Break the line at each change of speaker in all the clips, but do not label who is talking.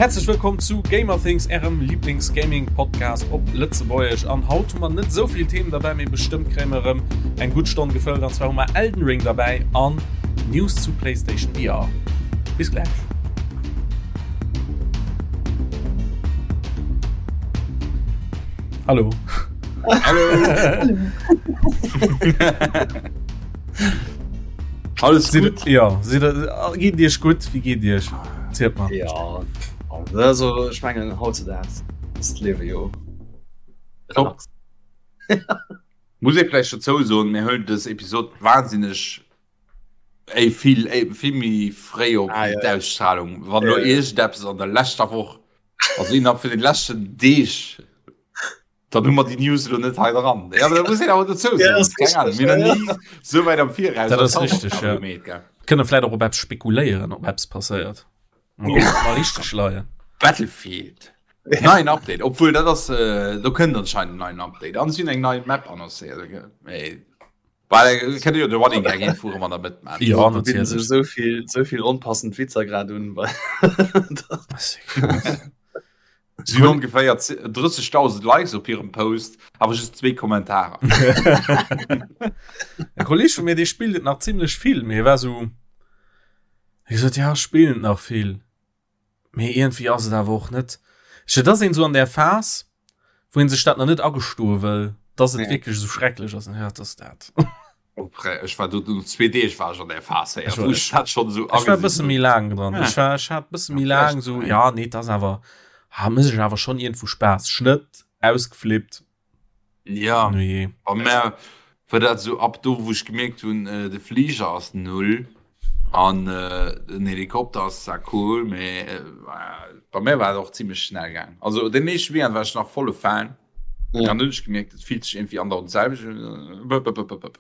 Häerzlech wëllkomm zu Gamerthings, ärem Lieblings-Gaming-Podcast op Lëtzebuergesch. An haut hu mer net esou vill Themen derbäi, mee bestëmmt kréie mer erëm eng gutt Stonn gefëllt. An zwar hu mer Elden Ring derbäi an News zu PlayStation VR. Bis gläich. Hallo.
Hallo.
Alles gut? Ja, geet Iech gutt? Wéi geet Iech?
Zielt mal. Ja, also ech mengen hautzedaags ass d'Liewe jo
Top. Muss ee vläicht dozou soen, mir huelen dës Episod wahnsinneg éi vill éi vill méi fréi op ah, ja. d'Ausstrahlung. Wann lo ja, ja. iergendeppes an der leschter Woch, also innerhalb vun den leschten Deeg Dann hu mer déi News elo net hei dran. Ja, da muss een awer dozou
soen. Keng Ahnung, mir
hunn ni sou wäit am Viraus
Dat ass richteg, ja. Gemeet, gell. Kënne vläit och op eppes spekuléieren, ob eppes passéiert. Mal kucken, ob mer richteg leien.
Battlefield. Neien Update, obwuel dat ass, äh, do kënnt anscheinend en neien Update. An si hunn eng nei Map annoncéiert. Mee well kënnt jo de Running Gag een vu an der Mëtt
maachen. Ja, Do bidden sech esou vill, esou vill onpassend Witzer grad un.
Si hunn ongeféier 30.000 Likes op hirem Post, awer just zwee Kommentarer.
E Kolleg vu mir, dee spillt et nach zimlech vill, mee hie war sou, hie sot, ja, ech spillen et nach vill, mee iergendwéi ass et awer och net, ech, et ass een sou an där Phas, wou een sech dat nach net agestoe wëll, dass et wierklech esou schrecklech ass, an ja, et ass dat.
Ech war do no zwee Deeg war ech an der Phas
héier, wou ech dat schonn esou Ech war e bësse méi laang dran. Ech war ech hat bësse méi laang esou, ja nee, et ass awer, ha mécht ech awer schonn iergendwou Spaass. Schnëtt, ausgeflippt.
Ja, Nujee. Bei mär war dat esou ab do, wou ech gemierkt hunn, de Fliger ass null an den Helikopter ass zwar cool, mee bei mär war et och zimmlech schnell gaang. Also den éischte Weekend war ech nach volle Fan. Ja. Dann hunn ech gemierkt, et fillt sech irgendwie andauernd d'selwecht un. Bëp, bëp, bëp, bëp.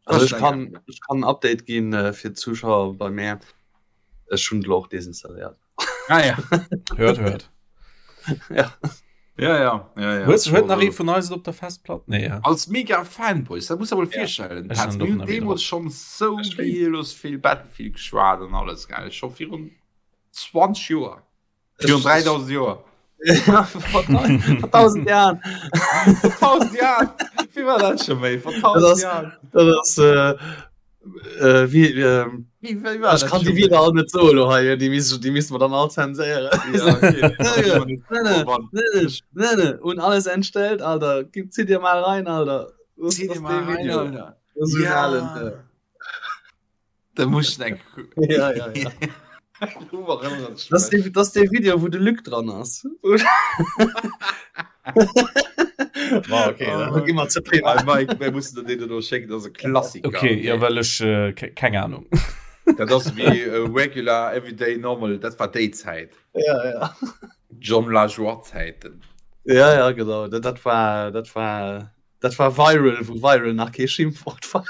Also ech kann, ech kann en Update ginn äh, fir d'Zuschauer bei mär. Ech hunn elo och desinstalléiert.
Ah ja.
Hört, hört.
Ja.
Ja, ja, ja, ja.
Huet huet nach ee vun eis et op der Festplatt? Nee, ja.
Als mega Fanboys, dat muss der mol
Ja.
virstellen.
Ech
Hat
hun
mir
och nach
deemools schonn sou gielos vill Battlefield geschwat an alles, gell? Scho virun 20 Joer. Virun 3000 Joer.
Vor 1000 Jahren.
Vor 1000 Jahren. Wie war dat schon méi? Vor 1000 Jahren.
Dat ass äh, äh, wie, äh, wie, wie war ich kann die wieder all net so lo hei, die müssen, die müssen wir dann all zenséieren.
Ja, okay.
Ne, ne, und alles entstellt, Alter. Gib, zieh dir mal rein, Alter.
Zieh dir mal rein, Alter.
Das ist
ja.
Allen,
Da muss ich eng
ja, ja, ja. Das ist das der Video wo de Lück dran ass.
War okay, oh,
immer zu privat.
Mike, wer muss den do schenken das e Klassiker.
Okay, ja well ech äh, keng Ahnung.
Dat ass wie äh, regular everyday normal, dat war déi Zäit.
Ja, ja.
John Lajoie Zäiten.
Ja, ja, genau. Dat, dat war dat war Dat war viral, wou viral nach kee Schimpfwort war.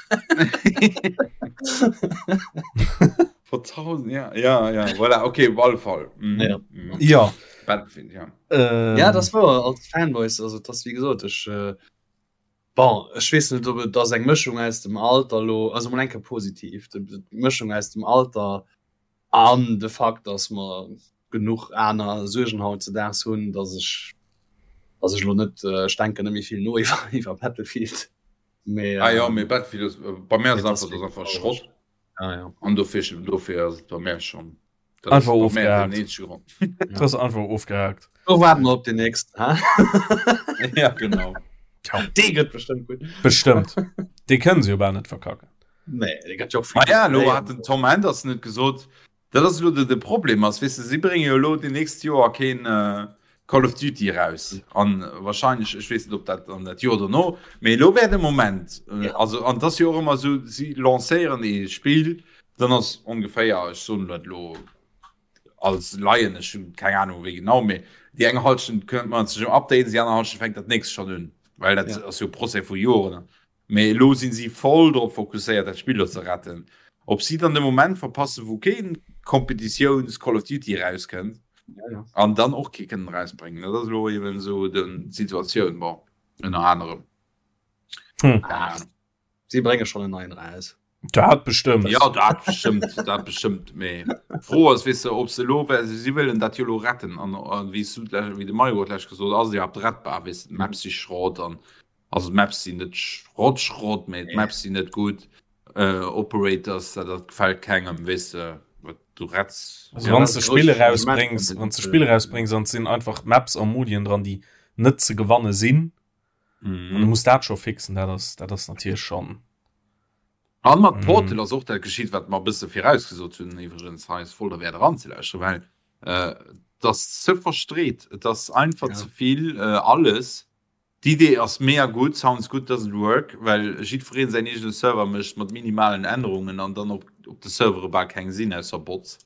Vor 1000 ja ja ja voilà okay op alle Fall
mhm. Ja.
Mhm.
Ja.
Battlefield, ja.
Ähm.
Ja, das war als Fanboys also das wie gesot ech äh, bon ech weess net ob et ass eng Mëschung aus dem Alter lo also mol enke positiv d'Mëschung aus dem Alter An de Fakt, dass mer genuch aner Suergen hautzedaags hunn, dass ech, dass ech elo net, ech denken net méi vill no iwwer, iwwer Battlefield.
Mee, ah jo, mee Battlefield ass, bei mär ass et einfach, dat ass einfach Schrott.
Ah ja.
An dofir, dofir ass et bei mär schonn.
Dat ass bei mär den eenzege Grond. Dat ass einfach ofgehakt.
Do waarden mer op den nächsten, ha?
Ja, genau.
Dee gëtt bestëmmt gutt.
Bestëmmt. Dee kënne se jo bal net verkacken.
Nee, dee gëtt jo och
Ma ja, elo hat den Tom Henderson huet gesot, dat ass elo de, de Problem ass, weess de, si brénge jo elo déi nächst Joer keen äh, Call of Duty eraus. An wahrscheinlech, ech weess net, ob dat an dat Joer dono, mee elo wär de Moment. Äh, also, an et ass jo och ëmmer esou, si lancéieren ee Spill, dann ass ongeféier, ech soen dat elo als Laien, ech hunn keng Ahnung wéi genau, mee déi eng Halschent kënnt man sech um Updaten, déi aner Halschent fänkt dat nächst schonn un, well dat
Ja.
ass jo e Procès vu Joren. Mee elo sinn si voll drop fokusséiert dat Spill do ze retten. Ob si dann de Moment verpassen wou keen Kompetitiouns Call of Duty erauskënnt an dann och kee kënnen erausbréngen, dat ass elo eben esou den d'Situatioun, bon ënner anerem.
Si brénge schonn en neien eraus.
Dat bestëmmt.
Ja dat bestëmmt dat bestëmmt mee d'Fro ass weess de ob se elo well si wëllen dat jo elo retten an an wéi s du d'lech wéi de Mario et lech gesot ass et iwwerhaapt rettbar weess de d'Maps si Schrott an also d'Maps sinn net Schrott Schrott mee d'Maps sinn net gutt äh, Operators dat dat gefält kengem weess de wat du retts.
Also wann s de Spill erausbréngs wann s de Spill erausbréngs an et sinn einfach Maps a Modien dran déi net ze gewanne sinn mhm. du muss dat scho fixen dat ass dat ass natierlech schon
an mat mhm. Portal ass och dat geschitt wat mer bësse virausgesot hunn iwwregens hei ass voll der Wäert eranzelauschteren well äh, das ze verstreet et ass einfach ja. ze vill äh, alles D'Idee ass mega gutt, sounds good doesn't work, well jiddwereen säin eegene Server mécht mat minimalen Ännerungen an dann op, op de Servere bal keng sinn ausser Bots.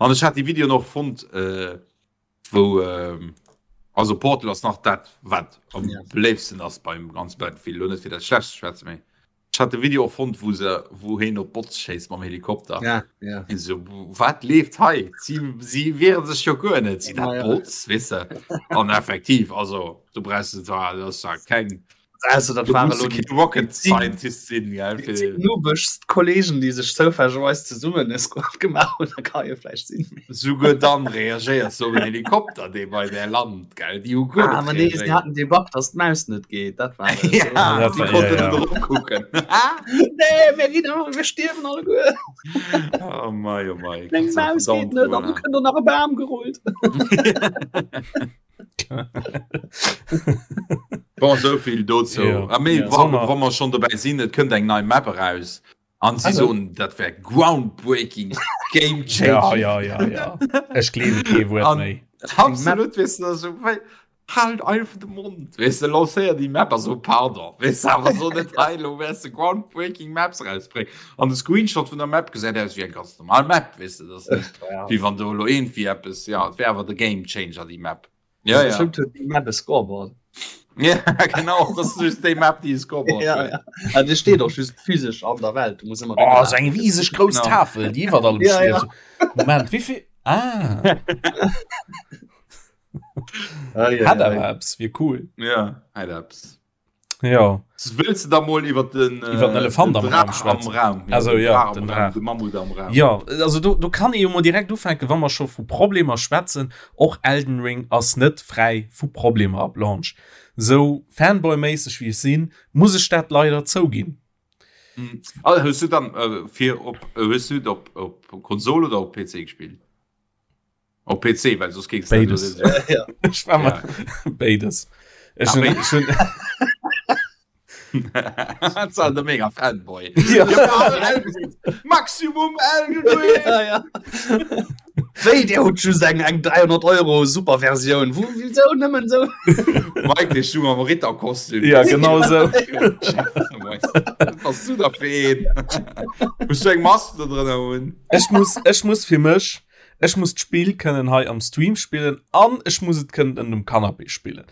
An ech hat déi Videoen och fonnt, äh, wou ähm, also Portal ass nach dat wat am ja. beléifsten ass beim ganz Battlefield lo net fir dat schlecht schwätze méi ich hatte Video och fonnt wo se wo heen op Bots schéisst mam Helikopter
ja, ja.
so wat leeft hei sie, sie wehren sech jo guer net si dat ja, Bots wisse an effektiv also du brauchst zwar das war keng
Also, dat war elo
kee Rocket Scientist sinn, gell,
fir. Déi noobegst Kollegen, déi sech zoufällegerweis zesummen e Squad gemaach hunn, da ka jo vläicht sinn.
Souguer dann reagéiers du op en Helikopter, dee bei där lant, gell, déi hu guer
Ah,
net
ma nee, si
reagéiert.
haten dee Bug, dass d'Maus net geet, dat war et.
Ja,
Dat
si
war, ja,
konnten
ja.
net eropkucken.
Nee, mir ginn all, mir stierwen alleguer.
Oh mei, oh mei.
Meng Maus geet net an du kënnt och nach e Bam gerullt.
Bon, souvill dozou.
Ja.
Ah, mee,
Ja.
wa,
Sommer.
wa mer schon dobäi sinn, et kënnt eng nei Map eraus. An si
Also.
soen, dat wär groundbreaking, game changing.
Ja, ja, ja, ja. Ech gleewe kee Wuert
An-
méi.
Absolut, weess du, also, wei, halt einfach de Mond, weess du, lancéier déi Map a so, pardon, weess du, awer so net hei, lo wäers de groundbreaking Maps rausbréngen. An de Screenshot vun der Map gesäit aus wéi eng ganz normal Map, weess du, dat ass net,
Ja.
wéi wann do elo iergendwéi eppes, ja, et wär awer de Game Changer, déi Map. Ja, ja.
Bestimmt huet déi Map e Scoreboard.
Ja, genau, das ist just déi Map, déi e Scoreboard
Ja,
huet.
ja. Also, déi steet och just physesch an der Welt. Du muss ëmmer
Oh, so eng rieseg grouss
Genau.
Tafel, déi iwwer allem
Ja,
steet. Moment, wéi vill? Ah,
Ah, ja,
hat
ja,
awer
ja.
eppes, wier cool.
Ja, hat eppes.
Ja.
Wëlls de da mol iwwer den, äh,
Iwwer den Elefant am
den
Raum
Draach
schwätzen?
Am Raum. Ja,
Also,
den
ja,
Draach am
den
Raum,
Draach.
De Mammut am Raum.
Ja, also do, do kann ee jo mol direkt ufänken, wa mer scho vu Problemer schwätzen. Och Elden Ring ass net fräi vu Problemer ab Launch. Sou Fanboy-méisseg wéi ech sinn, muss ech dat leider zouginn.
Mhm. Also, hues du dann äh, fir op äh, hues du op, op Konsol oder op PC gespillt? Op PC, well soss géings du dat
Béides.
elo net
Ja.
Ech war
Ja.
mat béides. Ech
Ah,
hunn,
béides.
ech hunn,
Dat war de mega Fanboy.
Ja.
Maximum Elden Ring!
Ja, ja. Wéi, Dir hutt just eng, eng 300 Euro Superversioun. Wou, wieso nëmmen sou?
Mike, dee stung am Ritterkostüm.
Ja, genau sou.
Was bass du da fir een? Muss du eng Mask do drënner hunn?
Ech muss, ech muss fir mech, Ech muss d'Spill kënnen hei am Stream spillen an ech muss et kënnen ënnert dem Canapé spillen.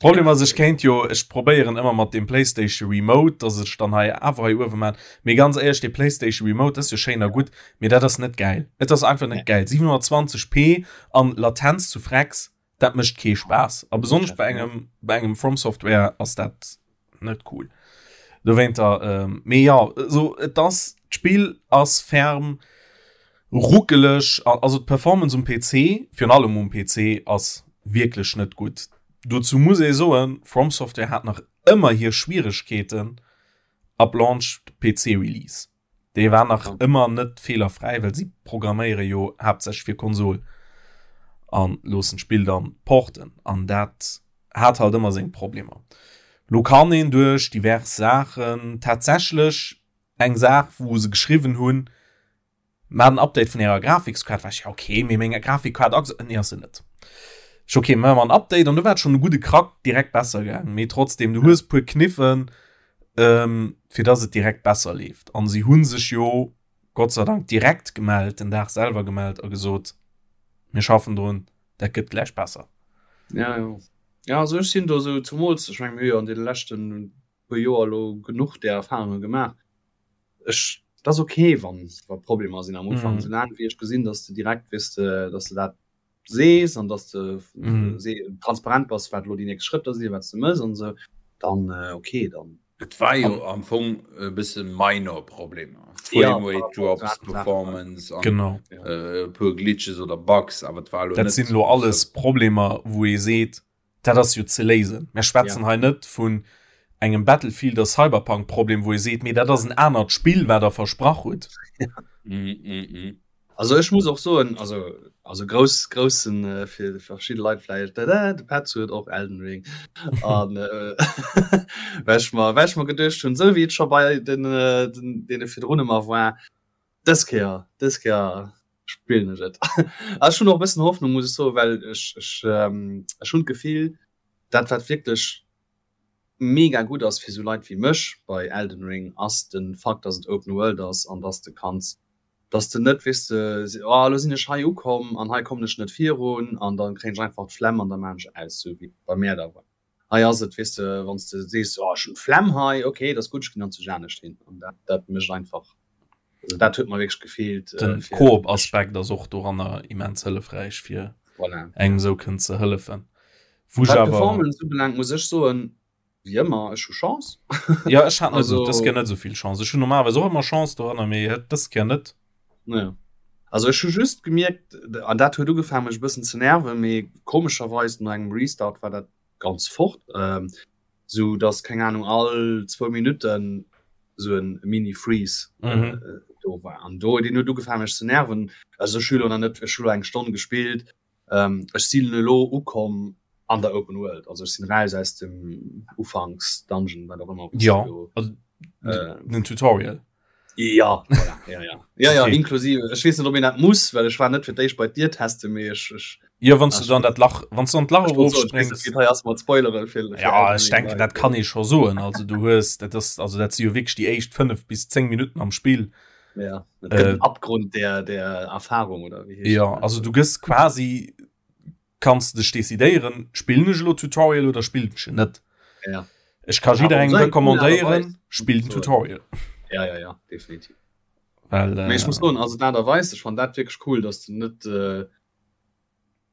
Problem ass, ech kéint jo, ech probéieren ëmmer mat dem PlayStation Remote, dass ech dann hei awer hei uewe man. Mee ganz éierlech, dee PlayStation Remote, dat ass jo schéin a gutt, mee dat ass net gäil. Et ass einfach net gäil. 720p an Latenz zu Frecks, dat mécht kee Spaass. A besonnesch bei engem, bei engem From Software ass dat net cool. Dowéinter, ähm, mee ja, so, et ass, d'Spill ass ferm ruckeleg, also d'Performance um PC, virun allem um PC, ass wierklech net gutt. Dozou muss ee soen, From Software hat nach ëmmer hir Schwieregkeeten ab Launch PC Release. Dee war nach ëmmer net feelerfräi, well si programméiere jo haaptsächlech fir Konsol an loossen d'Spill dann porten an dat hat halt ëmmer seng Problemer. Lo kann een duerch divers Saachen tatsächlech eng Saach wou se geschriwwen hunn, Maacht en Update vun ärer Grafikskaart, war ech ja okay, mee meng Grafikkaart ass nee ass se net. Ech okay, maache mer en Update an du war et schonn e gudde Krack direkt besser gaangen, mee trotzdem du hues puer Kniffen ähm, fir dass et direkt besser leeft. An si hunn sech jo Gott sei Dank direkt gemellt, den Dag selwer gemellt a gesot, mir schaffen drun, dat gëtt gläich besser.
Ja, ja. Ja, also ech sinn do sou, zumools, ech meng mir hu jo an deene leschten puer Joer elo genuch där Erfahrunge gemaach. Ech, et ass ok wann wa Problemer sinn am Ufank, mm. soulaang wéi ech gesinn, dass de direkt weess de, dass de dat sees an dass de mm. se transparent bass, wat lo déi nächst Schrëtter sinn, wat du mëss an sou, dann äh, okay dann.
Et war jo am Fong e bësse minor Problemer. Just Frame Rate Drops, Performance
an genau.
äh, puer Glitches oder Bugs, awer et
war Dat sinn lo alles Problemer, wou ee seet, dat ass jo ze léisen. Mir schwätzen ja. hei net vun engem Battlefield oder Cyberpunk Problem, wou ee seet, mee dat ass en anert Spill, wat der versprach hutt.
Ja. Mm, mm, mm. Also ech muss och soen, also, also grouss groussen äh, fir verschidde Leit vläicht, de, de Petz huet och Elden Ring. An äh, well ech mer, well ech mer geduecht hunn, sou wéi et scho bei den, äh, den, deene virdrun ëmmer war, dës Kéier, dës Kéier spillen ech et. A ech hunn och e bëssen Hoffnung, muss ech soen, well ech, ech, ähm, ech hunn d'Gefill, dat wat wierklech mega gutt ass fir sou Leit wéi mech bei Elden Ring, ass de Fakt, dass et Open World ass an dass de kanns dass de net, weess de, oh elo sinn ech hei ukomm an hei kommen ech net virun an da kréien ech einfach d'Flemm an da maachen ech aus, sou wéi bei mär da war. Hei ass et, weess de, wann s de sees, oh ech hunn d'Flemm hei, ok, dat ass gutt, ech ginn dann zu anescht hin an dat, dat mécht einfach, also dat huet mer wierklech gefeelt.
Den Koop-Aspekt ass och doranner immens hëllefräich, fir
voilà.
engem sou kënnen ze hëllefen.
Wou ech awer. Wat d'Performance ubelaangt, muss ech soen, Wéi ëmmer, ech hu Chance.
Ja, ech hat net also, dës Kéier net esou vill Chance. Ech hunn normalerweis och ëmmer Chance doranner, mee et dës Kéier net.
Ja. Also ech hu just gemierkt, an dat huet ugefaangen mech e bëssen ze nerven, mee komescherweis no engem Restart war dat ganz fort, ähm, sou dass, keng Ahnung, all zwou Minutten sou en Mini-Freeze mhm. äh, do war. An do, deen huet ugefaangen mech ze nerven. Also ech hu lo nach net, ech hu lo eng Stonn gespillt, Ähm, ech sinn elo ukomm an der Open World, also ech sinn raus aus dem Ufanks-Dungeon, wat och ëmmer.
Ja, also, äh, den Tutorial.
Ja, voilà, ja, ja. Ja, ja, okay. inklusive. Ech weess net, ob een dat muss, well ech war net fir d'éischt bei d'Dier testen, mee ech, ech
Ja, wann du dann dat Lach, wann du an d'Lach
erofspréngs. Hei ass mat Spoilere
fir, fir Ja, ech denken, dat kann ee scho soen. Also du hues, dat ass, also dat si jo wierklech déi éischt 5 bis 10 Minutten am Spill.
Ja, äh, Abgrund der, der Erfahrung oder
wie ja also du gëss quasi kannst dech decidéieren spillen ech lo Tutorial oder spillen ech net
ja.
Ech kann jidderengem recommandéieren spill den Tutorial
ja ja ja definitiv
well äh,
ich muss soen, also dat erweist ech fand dat wirklich cool dass du net äh,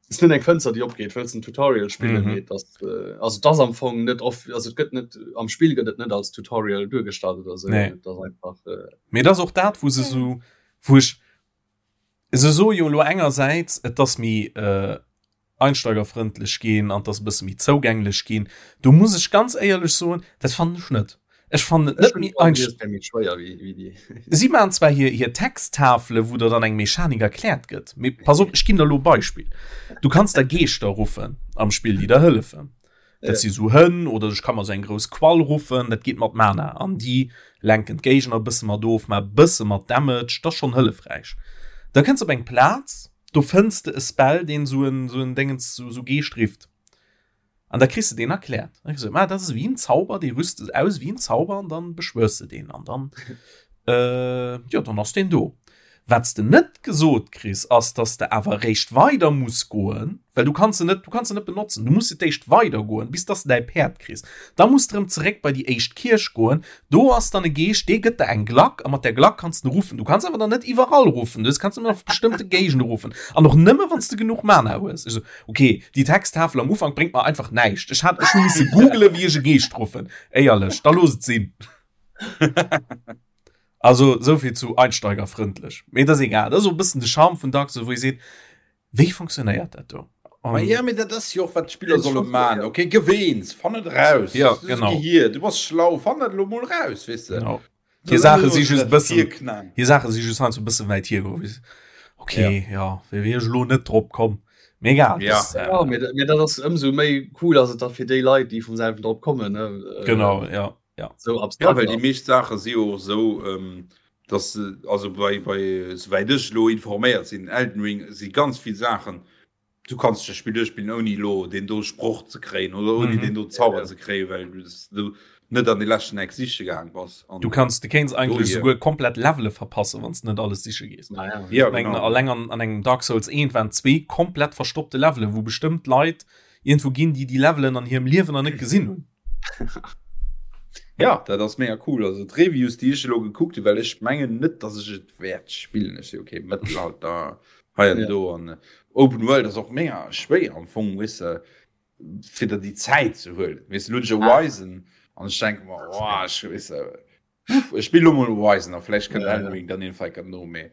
ist net eng Fënster déi opgeet wëlls en Tutorial spillen mhm. das, äh, also das am Fong net oft also gëtt net am Spiel gëtt et net als Tutorial duergestallt oder so
nee.
das einfach
äh, mir das och dat wo se so wo ich se so jo lo engersäits et ass mi äh, einsteigerfrëndlech ginn an dass bësse méi zougänglech ginn do muss ech ganz éierlech soen dat fannen ech net Ech fannen et net méi Si maachen zwar hir hir Texttafele wou der dann eng Mechanik erkläert gëtt, mee pass op, ech ginn der elo e Beispill. Du kanns der Geeschter ruffen am Spill, déi der hëllefen. Dat si sou Hënn oder ech ka mer sou eng grouss Quall ruffen, dat geet mat Mana an déi lenken d'Géigner e bësse mat of, maache bësse mat Damage, dat ass schonn hëllefräich. Da kënns op eng Plaz, do fënns de e Spell, deen sou en sou en Déngens sou Geescht rifft. An da kriss de deen erkläert. Dann kriss du, ah, dat ass wéi en Zauber, dee rüst de aus wéi en Zauber an dann beschwörs de deen an dann, äh, jo, dann ass deen do. Wat s de net gesot kriss, ass, dass de awer eréischt weider muss goen, well du kanns se net, du kanns se net benotzen. Du muss fir d'éischt weider goen, bis dass de däi Päerd kriss. Da muss de erëm zeréck bei déi éischt Kierch goen. Do ass dann e Geescht, dee gëtt der eng Glack a mat där Glack kanns de ruffen. Du kanns awer dann net iwwerall ruffen, du kanns nëmmen op bestëmmte Géigende ruffen an och nëmme wann s de genuch Mana hues. Ech sou, Ok, déi Texttafel am Ufank bréngt mer einfach näischt. Ech hat ech hu misse googelen, wéi ech e Geescht ruffen. Éierlech, da looss et sinn. Also souvill zu einsteigerfrëndlech. Mee dat ass egal, dat ass och e bëssen de Charme vun Dark Souls, wou ee seet, wéi funktionéiert dat do?
Ma ja, mee dat ass jo och wat d'Spiller solle man. Ok, geweens, fann et eraus.
Ja, genau.
Gehir, du bass schlau, fann dat elo mol raus, weess de.
Genau. Hir Saache si just bëssen hir Saache si just heiansdo e bësse wäit hiergeholl. Okay, ja, ja wier ech elo net drop komm. Mee egal.
Ja. Das, äh, ja, mee, mee dat ass ëmsou méi cool ass et da fir déi Leit, déi vum selwen drop kommen. Ne?
Äh, genau, ja. Ja.
So abstrakt. Ja, well déi meescht Saache si jo och esou, ähm, dass also bei, bei souwäit ech elo informéiert sinn, Elden Ring si ganz vill Saachen, du kanns das Spiel duerchspillen ouni lo den do Sproch ze kréien oder ouni mm -hmm. den do Zauber ja, ja. ze kréien, well du, du net an de leschten Eck siche gaang bass.
An du kanns du kéints eigentlech souguer komplett Levele verpassen, wann du net alles siche gees.
Ah, ja.
Ja, genau. Alleng an, an engem Dark Souls 1 waren zwee komplett verstoppte Levele, wou bestëmmt Leit irgendwo ginn, déi die Levelen an hirem Liewen nach net gesinn hunn.
Ja, dat ass mega cool. Also d'Reviews, déi ech elo gekuckt hunn, well ech mengen net, dass ech et wäert spillen. Ech si okay, Mëttelalter hei an ja. do an äh, Open World ass och mega schwéier am Fong weess de, fir der déi Zäit ze huelen. Weess du, lo hunn ech Horizon an ech denke mer, oh, ech weess de. Ech spill lo mol Horizon a vläicht kënnt Elden Ring dann iergendwann enker no, mee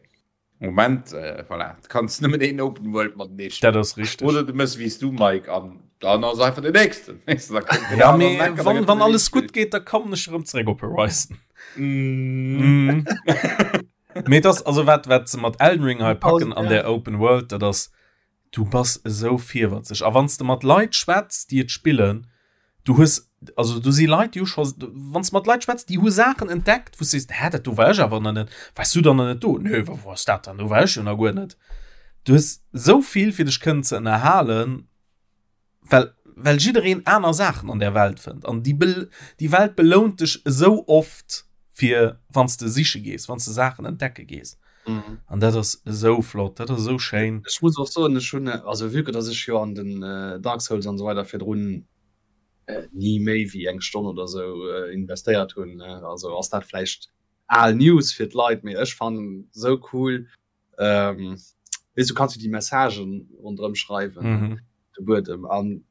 Moment äh, voilà, du kanns nëmmen een Open World matenee
spillen. Dat ass richteg.
Oder du mëss wéi s du Mike an dann ass einfach den nächsten. Weess du, da
kënnt den Ja, aneren mee Ecker, da wann, gëtt wann den alles gutt geet, da kommen ech erëm zeréck op Horizon.
Mm.
Mm. Mee das, also wat, wat se mat Elden Ring hei packen an der Open World, dat ass, du bass esou virwëtzeg. A wann s de mat Leit schwätz, déi et spillen, du hues, also do si Leit, déi hu scho, wann s de mat Leit schwätz, déi hu Saachen entdeckt, wou s de sees, hä, dat do war ech awer nach net, waars du dann nach net do? Nö, wa wou ass dat dann? Do war ech jo nach guer net. Du hues esou vill fir dech kënnen ze ënnerhalen. well well jiddereen aner Saachen an der Welt fënnt an déi Bel déi Welt belount dech esou oft fir wann s de siche gees, wann s de Saachen entdecke gees.
Mhm.
An dat ass esou flott, dat ass esou schéin.
Ech muss och soen, ech hunn, also vue que dass ech jo an den Dark Souls an esou weider virdrun ni méi wéi eng Stonn oder esou investéiert hunn, also ass dat vläicht al News fir d'Leit, mee ech fannen esou cool, ähm, weess du kanns du déi Messagen ronderëm schreiwen
mhm.
de Buedem an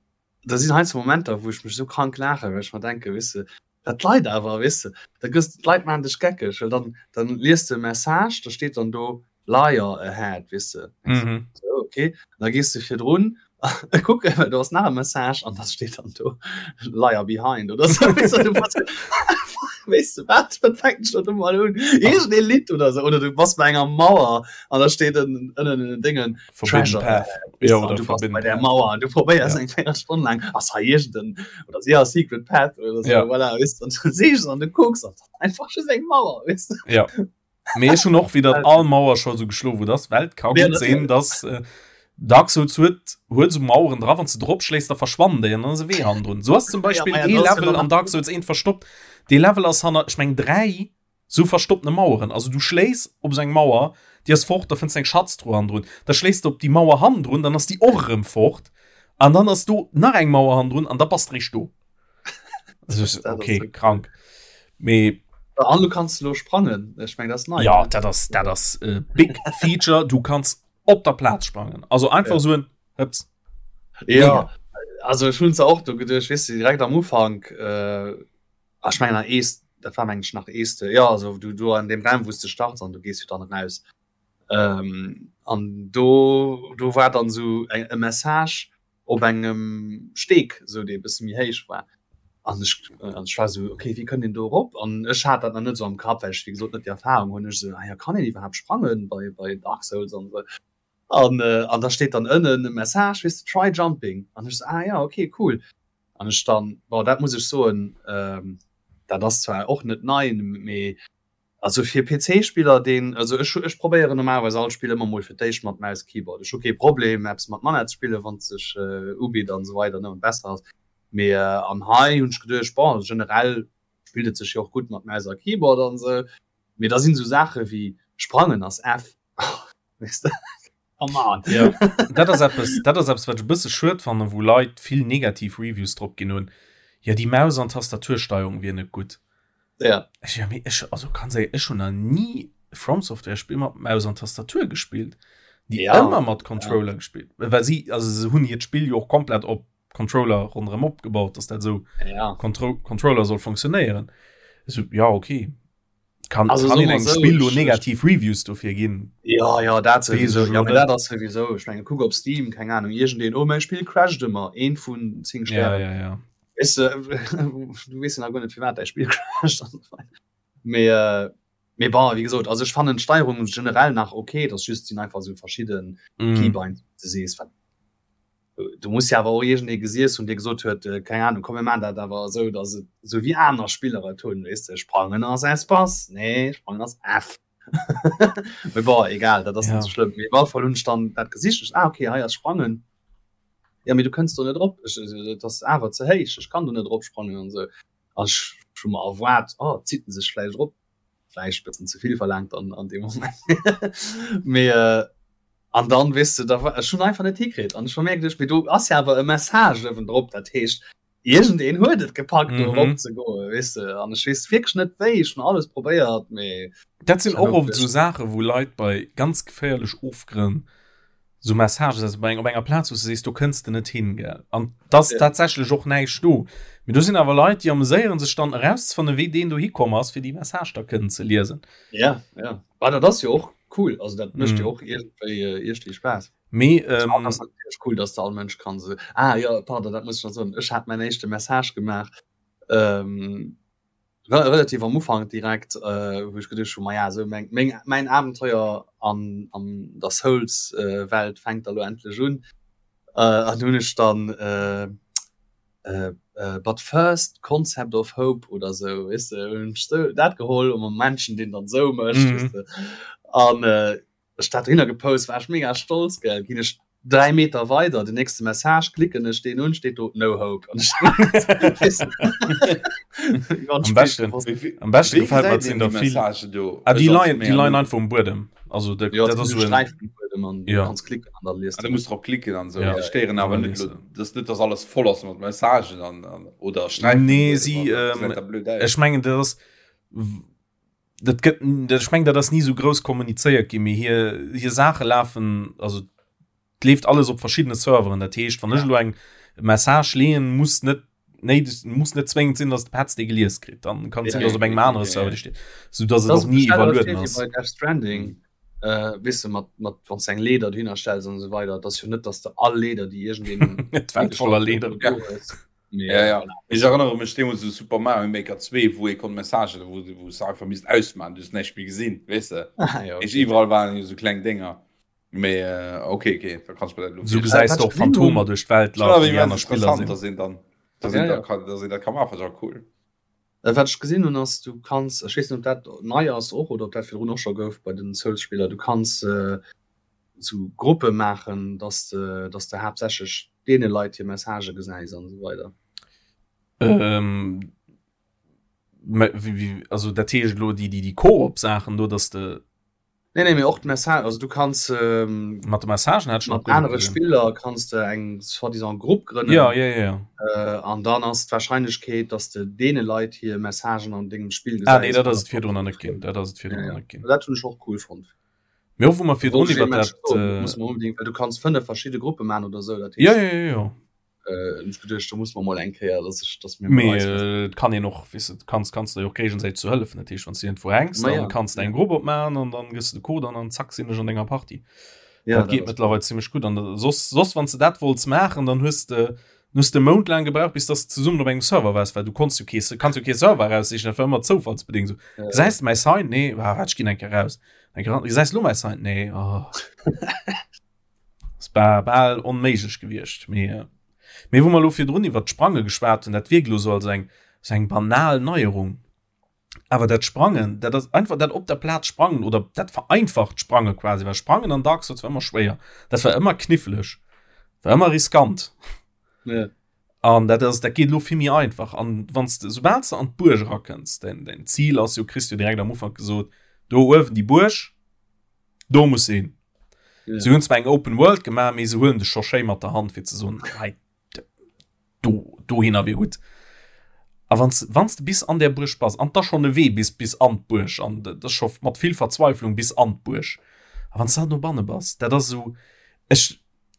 da sinn heiansdo Momenter wou ech mech sou krank laachen well ech mer denke weess de dat d'Leit awer weess de da gëss d'Leit maachen dech geckeg well dann dann liest de e Message da steet dann do Liar ahead weess de
mhm.
so, okay da gees de virdrun kucken well do ass nach e Message an da steet dann do Liar behind oder sou weess du, du bass weess du wat wat fänkt schon do mal un irgend e Lidd oder so oder du bass bei enger Mauer an da steet ënnen ënnen in den Dingen
Forbidden
Treasure
Path
weißt
ja,
du,
oder
du bass
Forbidden
bei der
Path
Mauer an du probéiers
ja.
eng 4 Stonn lang ass hei irgenden oder si ass Secret Path oder so
ja.
voilà, weißt du, und du siehst an du kucks an einfach just eng Mauer weißt du
ja. Mee ech hunn och wieder all Mauer scho sou geschloen, wou das Welt ka
Ja,
gutt sinn, dass äh, Dark Souls huet huet sou Maueren dra, wann du drop schléis, da verschwannen déi an dann ass e Wee hannendrun. Sou ass zum Beispill
ja,
ee
ja
Level an Dark Souls 1 verstoppt. Dee Level ass hanner, ech meng 3 sou verstoppene Maueren. Also du schléis op sou eng Mauer, déi ass fort, da fënns du eng Schatztruh hannendrun. Da schléis du op déi Mauer hannendrun, dann ass déi och erëm fort. An dann ass do nach eng Mauer hannendrun an da bass de réischt do. Okay krank mee
an du kannst lo sprangen ech meng das nei
ja dat ass dat ass äh, big feature du kannst op der Platz sprangen also einfach ja. so en
Hëps. ja also ech hunn se och do geduecht weess du direkt am Ufank äh, ah, ech mengen nach ees dat war meng ech nach eeste ja also du du an dem Raum wou s de starts an du gees jo dann raus ähm, an do do war dann sou eng e Message op engem Steek sou dee bësse méi héich war an ech an ech war sou okay wéi kënnt een do erop an ech hat dat nach net sou am Kapp well ech wéi gesot net déi Erfahrung hunn ech sou ah ja kann een iwwerhaapt sprangen bei bei Dark Souls an sou an an da steet dann ënnen e Message weess de try jumping an ech sou ah ja okay cool an ech dann bon dat muss ech soen dat ass zwar och net nei mee Also fir PC-Spiller deen, also ech ech probéieren normalerweis all Spill ëmmer mol fir d'éischt mat Maus Keyboard. Ech hu kee Problem eppes mat Manett ze spillen wann et sech ubitt an esou weider ne an besser ass. Mee an hei hunn ech geduecht bon generell spillt et sech jo och gutt mat Maus a Keyboard an esou. Mee da sinn esou Saache wéi sprangen ass F weess de come on.
Jo dat ass eppes dat ass eppes wat ech e bësse schued fannen wou Leit vill negativ Reviews drop ginn hunn, jo déi Maus an Tastatursteierung wier net gutt.
Ja.
Ech, ja, mee ech, also ganz ehrlich, ech hun nach nie From Software Spiel mat Maus an Tastatur gespielt. Die
ja.
ëmmer mat Controller ja. gespielt. Well sie, also se hunn hiert Spiel jo och komplett op Controller ronderëm opgebaut, dass dat so
ja.
Contro Controller soll funktionéieren. So, ja, okay. Kann,
also,
kann
so
een engem
so,
Spill lo
ich,
negativ Reviews dofir ginn?
Ja, ja, dat sowieso.
Wees
Ja,
ech
mee dat ass sowieso. Ech menge kuck op Steam, keng Ahnung, iergendeen, oh mäi Spill crasht ëmmer, eent vun 10
Ja,
Stären.
ja, ja.
Weißt du, du weess jo nach guer net firwat däi Spill crasht. Mee äh, mee bon, wéi gesot, also ech fannen d'Steierung generell nach okay, dass just sinn einfach sou verschidden
Mm.
Keybinds, du sees wat du muss ja awer och iergendee gesiess hunn, dee gesot huet, äh, keng Ahnung, komm mir maan dat awer esou, dass et sou wéi aner Spiller et hunn, weess de, sprangen ass Espace, nee, sprangen ass F. Mee bon, egal, dat ass
Ja.
net sou schlëmm. Mee op alle Fall hunn ech dann dat gesicht, ech, ah okay, hei ass sprangen. Ja, mee du kënns do net drop, ech, et ass awer ze héich, ech kann do net drop sprangen an esou. An ech hu mer erwaart, oh, zitt en sech vläicht erop, vläicht bëssen ze vill verlaangt an, an deem Moment. Mee äh, an dann, weess de, da war, ech hunn einfach net hikritt an ech hu mir geduecht, mee do ass ja awer e Message uewendrop, dat heescht, iergendeen huet et gepackt, do
Mhm.
erop ze goen, weess de. An ech weess wierklech net wéi, ech hunn alles probéiert, mee
Dat sinn
ech hat
och
och
oft esou Saachen, wou Leit bei ganz geféierlech Ofgrënn. Sou Messagen also bei eng op enger Plaz wou s de sees do kënns de net hin gell an dass ja. tatsächlech och näischt do. Mee do sinn awer Leit déi ameséieren sech dann erauszefannen wéi deen do hikomm ass fir déi Message da kënnen ze liesen.
Ja ja ah, dat ass jo och cool also dat mécht mm. jo och iergendwéi äh, iergendwéi Spaass.
Mee ähm,
ah, das cool dass de all Mënsch kann se ah, ja pardon dat muss ich noch soen ech hat mein éischte Message gemaach ähm, relativ am Ufank direkt äh, wou ech geduecht hu ma ja sou meng, meng, mäin Abenteuer an, an der Souls äh, Welt fänkt da lo endlech un. Äh, an hunn ech dann äh, äh, äh, but first concept of hope oder sou weess de hunn ech sou dat geholl um Menschen deen dann sou mécht mm. weess de. An äh, ech dat dohinner gepost war ech mega stolz gell ginn ech 3 Meter weider den nächste Message klicken ech deen un steet do no hope an
am beschten am beschten gefällt mir sinn der vill ah, déi leien déi leien einfach um Buedem also de,
ja, dat ass so ein,
ja.
kannst klicken an dann liest
ah, du musst drop klicken an so ja. stéieren awer net das net dass alles voll ass mat Messagen an, an oder
Streifen nee sie ähm, ech mengen das dat gëtt dat ech mengen dat ass ni sou grouss kommunizéiert ginn, mee hir hir Saache lafen also et leeft alles op verschiddene Serveren. Dat heescht wann ech elo eng Message leeën, muss net néideg muss net zwéngend sinn, datt de Petz déi gelies kritt. Dann kann et sinn, datt op engem anere Server déi steet, sou datt et
Das
och ni
ist
iwwerlueden
bei
ass.
Death Stranding äh, weess de mat mat wann s de eng Leeder dohinner stells an esou weider, et ass jo net, datt s de all Leeder déi iergendeen
D'Welt voller Leeder.
do hues.
Nee, ja, ja. Ich erinnere mech deemools u Super Mario Maker 2, wou ee konnt Messagen, wou wou s einfach misst ausmachen, du hues näischt méi gesinn, weess de?
Ah, ja,
Ich
okay.
iwwerall waren jo sou kleng Dénger. Mee äh, okay, okay, da kannst du mir dat elo
Sou
virstellen.
gesäis
Äh,
de
wat
och
ech gesinn hunn,
Phantomer duerch d'Welt
Schon awer
lafen, déi
immens
aner Spiller
interessant,
sinn.
dass een dann, dass
ja,
een da
ja.
kann, dass een dat ka maachen, ass awer cool.
Äh, wat ech gesinn hunn ass, du kanns, ech weess net, ob dat nei ass och oder ob dat virdrun och scho gouf bei den Souls-Spiller, du kanns äh, sou Gruppe maachen, dass de, dass de haaptsächlech deene Leit hir Messagë gesäis an esou weider.
Ähm, wéi, also dat heescht elo déi, déi, déi Koop-Saachen do, dass de.
Nee, nee, mee och d'Message, also du kanns ähm,
Mat de Messagen hat ech nach
mat
guer net
anere
gesinn.
Spiller kanns de eng soi-disant Grupp grënnen.
Ja, ja, ja, ja.
Äh, an dann ass d'Warscheinlechkeet, dass de deene Leit hir Messagen an dengem Spill
Ah nee,
gesäis,
dat ass et virdrun nach net ginn. Dat ass et
Ja,
virdrun nach
ja.
net ginn.
Dat hunn ech och cool fonnt.
Mee och wou mer virdrun
Wollt ech
iwwer
ee Match
dat
soen, dat muss mer unbedingt, well du kanns 5 verschidde Gruppe man oder sou, dat
Ja,
heescht
ja, ja, ja.
äh, hunn ech geduecht, do muss mer mol eng Kéier, dass ech, dass mir mol
Mee
eis
äh, et kann een och, weess de, kanns kanns der jo och géigesäiteg zu hëllefen. Dat heescht, wann s du iergendwou hänks,
Ma
dann
ja,
kanns de
ja.
eng Grupp opmaachen an dann gëss de de Code an an zack sinn ech an denger Partie.
Ja,
Dat
dat
geet
ass
mëttlerweil zimmlech gutt. An da soss soss wann s de dat wollts maachen, dann hues de hues de mountelang gebraucht, bis dass de zesummen op engem Server waars, well du konns jo kee kanns jo kee Server eraussichen, dat war ëmmer zoufallsbedéngt sou.
Ja.
Gesäis de mäi Sign? Nee, ah, waart, ech ginn eng Kéier raus. Gesäis lo mäi Sign? Nee, oh. Es war bal onméiglech gewiescht. Mee, äh, mee wou mer lo virdrun iwwer d'Sprange geschwat hunn, dat wierkt lo sou als eng, sou eng banal Neierung. Awer dat Sprangen, dat ass einfach dat op der Plaz sprangen oder dat vereinfacht Sprange quasi, well Sprangen an Dark Souls war ëmmer schwéier. Dat war ëmmer kniffleg, war ëmmer riskant.
Ja.
An dat ass, dat geet lo vill méi einfach. An wann s de, soubal s de an d'Buerg erakënns, däin, däin Zil ass jo, kriss du direkt am Ufank gesot, do uewen déi Buerg, do muss een.
Ja.
Se hunn zwar eng Open World gemaach, mee se huelen dech scho schéi mat der Hand fir ze soen, hei, do, dohinner wier gutt. A wann s, wann s de bis an där Buerg bass, an 't ass schonn e Wee bis, bis an d'Buerg, an dat ass scho mat vill Verzweiflung bis an d'Buerg, a wann s de dann dobanne bass, dat ass esou, ech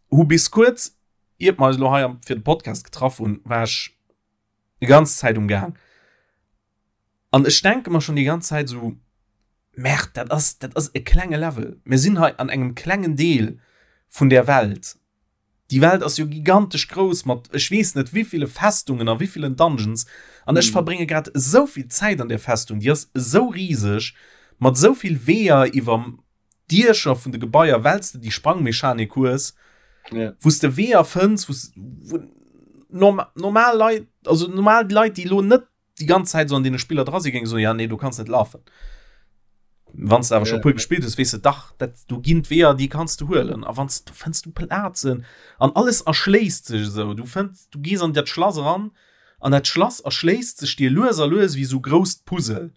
hu bis kuerz iert mer eis elo hei fir de Podcast getraff hunn, war ech déi ganz Zäit um Gaang. An ech denke mer schon déi ganz Zäit esou, Merde, dat ass, dat ass e klenge Level. Mir sinn hei an engem klengen Deel vun där Welt. Déi Welt ass jo gigantesch grouss mat ech weess net wéiville Festungen a wéivillen Dungeons. An ech verbrénge grad esou vill Zäit an där Festung, déi ass esou riseg, mat esou vill Weeër iwwer Diecher vun de Gebaier, well s de déi Sprangmechanik hues,
Ja.
wou s de Weeër fënns, wou s, wou norm, normal Leit, also normal Leit, déi elo net déi ganz Zäit sou an deene Spiller dra sinn, géinge soen, ja nee, do kanns net lafen. Wann s de awer scho
Ja.
puer gespillt hues, weess de, dach, dat, do ginn d'Weeër, déi kanns du huelen. A wann s, du fënns du Plazen an alles erschléisst sech esou. Du fënns, du gees an dat Schlass eran an dat Schlass erschléisst sech dir lues a lues wéi sou grousst Puzzle.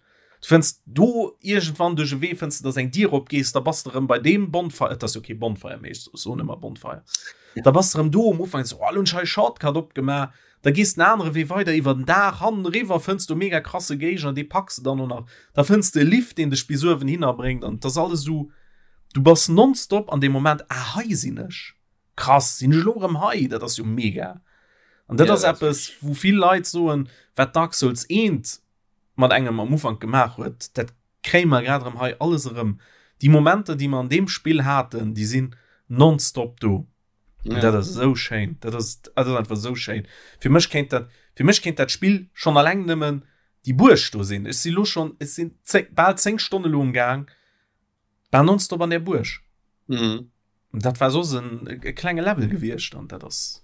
Du fënns do iergendwann duerch e Wee fënns de, dass eng Dier opgees, da bass de erëm bei deem Bonfire, et ass jo kee Bonfire méi, ech soen ëmmer Bonfire, da bass de erëm do um Ufank, so, oh, lo hunn ech hei e Shortcut opgemaach, da gees den anere Wee weider iwwer den Daach, hannen eriwwer fënns du e mega krasse Géigner, dee packs de dann och nach, da fënns de e Lift, deen dech bis uewen hinner bréngt an et ass alles esou. Du bass nonstop an deem Moment, ah hei sinn ech, krass, sinn ech elo erëm hei, dat ass jo mega. An dat ass eppes, wou vill Leit soen, wat Dark Souls 1 mat engem am Ufank gemaach huet, dat kréie mer grad erëm hei alles erëm. Déi Momenter, déi mer an deem Spill haten, déi sinn nonstop do. Ja. Dat ass esou schéin. Dat ass, dat ass einfach esou schéin. Fir mech kéint dat, fir mech kéint dat Spill schonn alleng nëmmen déi Buerg do sinn. Ech si lo schonn, ech sinn zéng, bal 10 Stonne lo um Gaang, bal nonstop an där Buerg. Mhm. Dat war soss en e klenge Level gewiescht an dat ass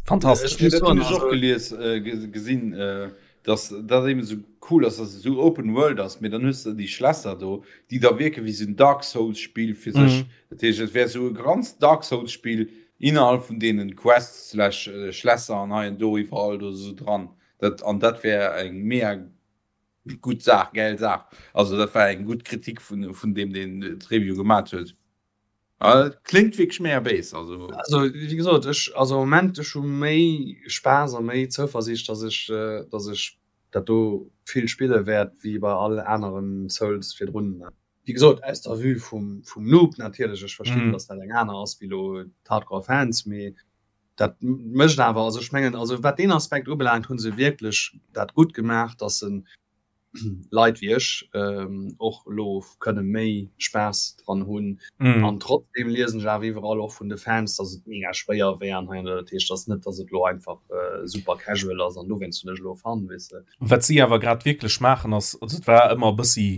fantastesch.
Ech hunn ech och gelies, äh, gesinn, äh, dass dat eben esou cool ass, dass et esou Open World ass, mee dann hues de déi Schlässer do, déi da wierke wéi esou en Dark Souls Spill fir sech. Mhm. Dat heescht, et wär esou e ganz Dark Souls Spill innerhalb vun deenen Quests slash Schlässer an hei an do iwwerall do esou dran. Dat, an dat wär eng mega gutt Saach, gäil Saach. Also dat war eng gutt Kritik vun, vun deem, deen d'Review gemat huet. Ah, klingt wierklech mega béis, also.
Also wéi gesot, ech, also am Moment, ech hu méi Spaass a méi Zouversiicht, dass ech, dass ech dat do vill spille wäert wéi bei all aneren Souls virdrun. Wéi gesot, aus der Vue vum, vum Noob natierlech, ech verstinn, dass dat eng aner ass wéi elo d'Hardcore Fans, mee dat mécht awer, also ech mengen, also wat deen Aspekt ubelaangt, hu se wierklech dat gutt gemaach, dass se Leit wéi ech och elo kënne méi Spaass dran hunn. Mm. An trotzdem liesen ech awer iwwerall och vun de Fans, dass et mega schwéier wär an hei an do. Dat heescht, dass net, dass et elo einfach äh, super casual ass an dowéinst hunn ech elo Fun, weess de.
Wat si awer grad wierklech maachen ass, also et war ëmmer e bëssi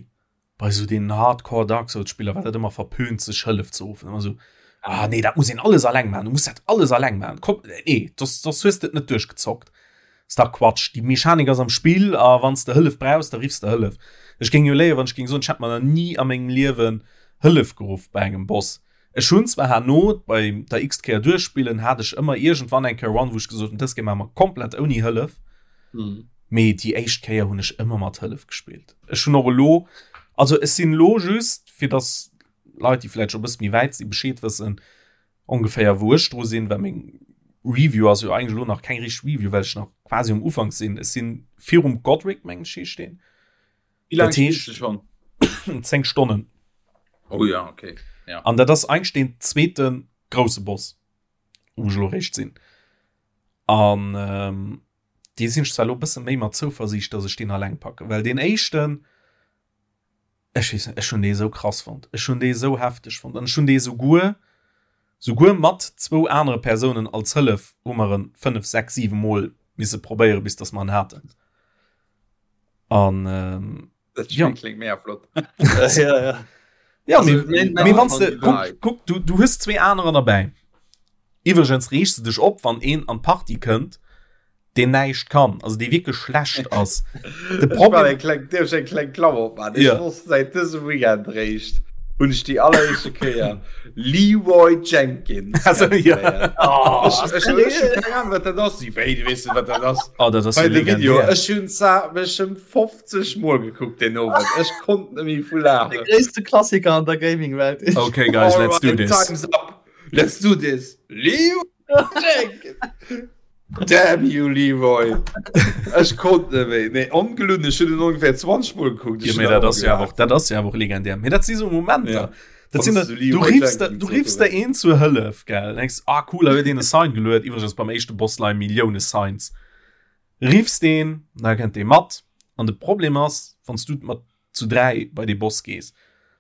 bei sou den Hardcore Dark Souls Spiller war dat ëmmer verpönt sech Hëllef ze ruffen. Ëmmer sou, ah nee, dat muss een alles alleng maachen, du muss dat alles alleng maachen. Komm, nee, soss, soss hues de et net duerchgezockt. Ass dach Quatsch. Déi Mechanik ass am Spill a wann s de Hëllef brauchs, da riffs de Hëllef. Ech géing jo léien, wann ech géing soen, ech hätt mer nach ni a mengem Liewen Hëllef geruff bei engem Boss. Ech hunn zwar herno bei der x-t Kéier duerchspillen, hat ech ëmmer iergendwann eng Kéier Run, wou ech gesot hunn, dës Kéier maache mer komplett ouni Hëllef. Mee déi éischt Kéier hunn ech ëmmer mat Hëllef gespillt. Ech hunn och elo, also ech sinn elo just, fir dass Leit, déi vläicht scho e bësse méi wäit sinn, Bescheed wëssen, ongeféier wou ech dru sinn, well meng Review ass jo eigentlech elo nach keng richteg Review, well ech nach quasi um Ufank sinn. Ech sinn virum Godric, mengen ech, heescht deen.
Wéi laang spills du schonn?
10 Stonnen.
Oh ja, okay.
Ja. An dat ass eigentlech deen zweete grousse Boss, wou ech elo réischt sinn. An ähm, dee sinn ech zwar elo e bësse méi mat Zouversiicht, dass ech deen alleng packen, well deen éischten, Ech weess net, ech hunn dee sou krass fonnt. Ech hunn dee sou hefteg fonnt an ech hunn dee souguer, souguer mat zwou anere Persounen als Hëllef hu mer en 5, 6, 7 Mol misse probéieren, bis dass mer en haten. An ähm,
Dat ja. klingt mega flott.
ja, ja.
Ja, also, mee, mee wann du, kuck, kuck, du, du hues zwee anerer derbäi. Iwwregens reegst du dech op, wann een an d'Party kënnt, deen näischt kann, also dee wierklech schlecht ass.
De Problem eng kleng, dierf ech eng kleng Klammer opmachen? Ech ja. wosst säit dësem Weekend réischt, hunn ech déi alleréischte Kéier Leroy Jenkins.
Also, ja.
Oh, ech, ech, ech, ech keng Ahnung, wat dat ass. Si wéi, du weess wat dat ass.
Oh, dat ass
jo legendär. Video. Ech hunn zwar mech ëm 50 Mol gekuckt den Owend. Ech konnt net méi vu laachen.
De gréisste Klassiker an der Gaming-Welt.
Okay, guys, let's do this.
Time's up. Let's do this. Leroy Jenkins. Damn you, Leroy! Ech konnt net méi. Nee, ongelunn, ech hunn en ongeféier 20 Mol gekuckt.
Ja, mee dat ass jo awer, dat ass jo awer och legendär. Mee dat si sou Momenter. Ja. Dat sinn, du riffs der, du riffs der een zur Hëllef, gell? Denkst, ah cool, da huet een e Sign geluet. Iwwregens beim éischte Boss leie Millioune Signs. Riffs deen, da kënnt dee mat. An de Problem ass, wann s du mat zu 3 bei dee Boss gees,